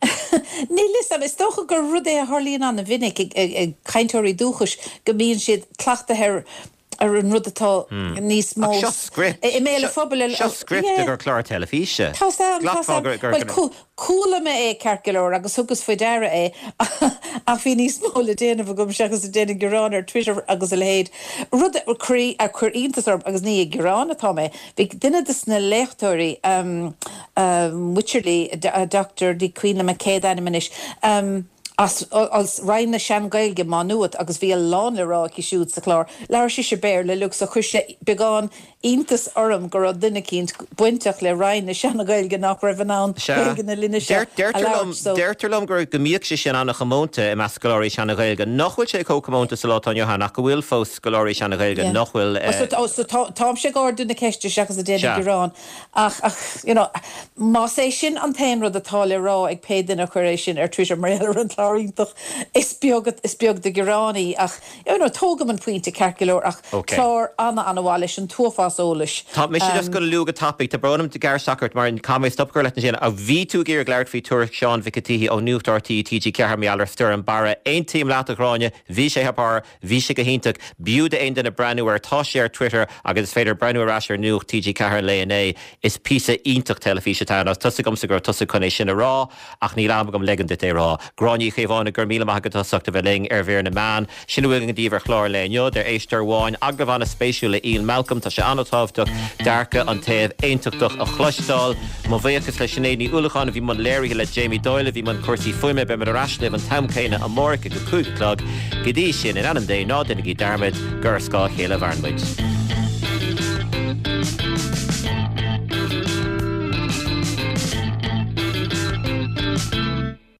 Níl fhios a'm. Is dócha gur rud é a tharlaíonn an-mhinic ag cainteoirí dúchais go mbíonn siad cleachtaithe ar ar an rud atá níos mó Ach seo script. i mbéal an phobail. Seo script i gcomhair clár teilifíse. Tá's a'm, tá's a'm. Bhuel, chuala mé é ceart go leor agus thugas faoi deara é ach bhí níos mó le déanamh agam seachas ag déanamh gearán ar Twitter agus a leithéid. Rud a chuir iontas orm, agus ní ag gearán atá mé, Bhí duine de na léachtóirí, Wycherley, Dr. Ní cuimhin liom a céad ainm anois, as Roinn na Sean-Ghaeilge, Má Nuat, agus bhí a lán le rá aici siúd sa chlár. Labhair sise Béarla uilig so chuir sé beagán iontas orm go raibh duine eicínt bainteach le Roinn na Sean-Ghaeilge nach raibh in ann Gaeilge na linne seo a labhairt. So. Deirtear liom go mbíodh sé sin an-chomónta i measc scoláirí Seana-Ghaeilge, nach bhfuil sé chomh comónta sa lá atá inniu ann ach go bhfuil fós scoláirí Seana-Ghaeilge nach bhfuil. Oh so táimse ag ardú na ceiste seachas ag déanamh gearán ach ach you know más é sin an t-aon rud atá le rá ag pé duine a chuir é sin ar Twitter mar gheall ar an chlár iontach is beag is beag de ghearán í ach you know tógaim an pointe ceart go leor ach clár ana-ana-mhaith leis an t-uafás eolais. Tá mise just gonna lua go tapaidh, tá brón orm gearradh isteach ort mar caithfidh mé stop a chur leat ansin ach bhí tú ag iarraidh labhairt faoi tuairisc Sheáin Mhic an tSíthigh ó Nuacht RTÉ TG4 mar gheall ar Stoirm Barra. Aontaím leat a Ghráinne, bhí sé thar barr. Bhí sé go hiontach. B'fhiú d'aon duine breathnú air. Tá sé ar Twitter agus is féidir breathnú ar ais ar Nuacht TG4 an lae inné. Is píosa iontach teilifíse atá ann. Agus tá's agamsa go raibh tusa chun é sin a rá ach níl am agam leigean duit é a rá. Gráinne Uí Chaomhánaigh, go raibh míle maith agat as ucht a bheith linn ar Mhír na Meán. Sin a bhfuil againn daoibh ar chlár an lae inniu. Deir éisteoir amháin, agallamh an-spéisiúil le Ian Malcolm. Tá sé an-tábhachtach dearcadh an taobh aontachtach a chloisteáil. Mo bhuíochas le Sinéad Ní Uallacháin a bhí i mbun léirithe, le Jamie Doyle a bhí i mbun cúrsaí fuaime. Beimid ar ais libh an t-am céanna amárach ag a 5 a chlog. Go dtí sin, in ainm Dé, ná déanaigí dearmad gur ar scáth a chéile a mhaireann muid.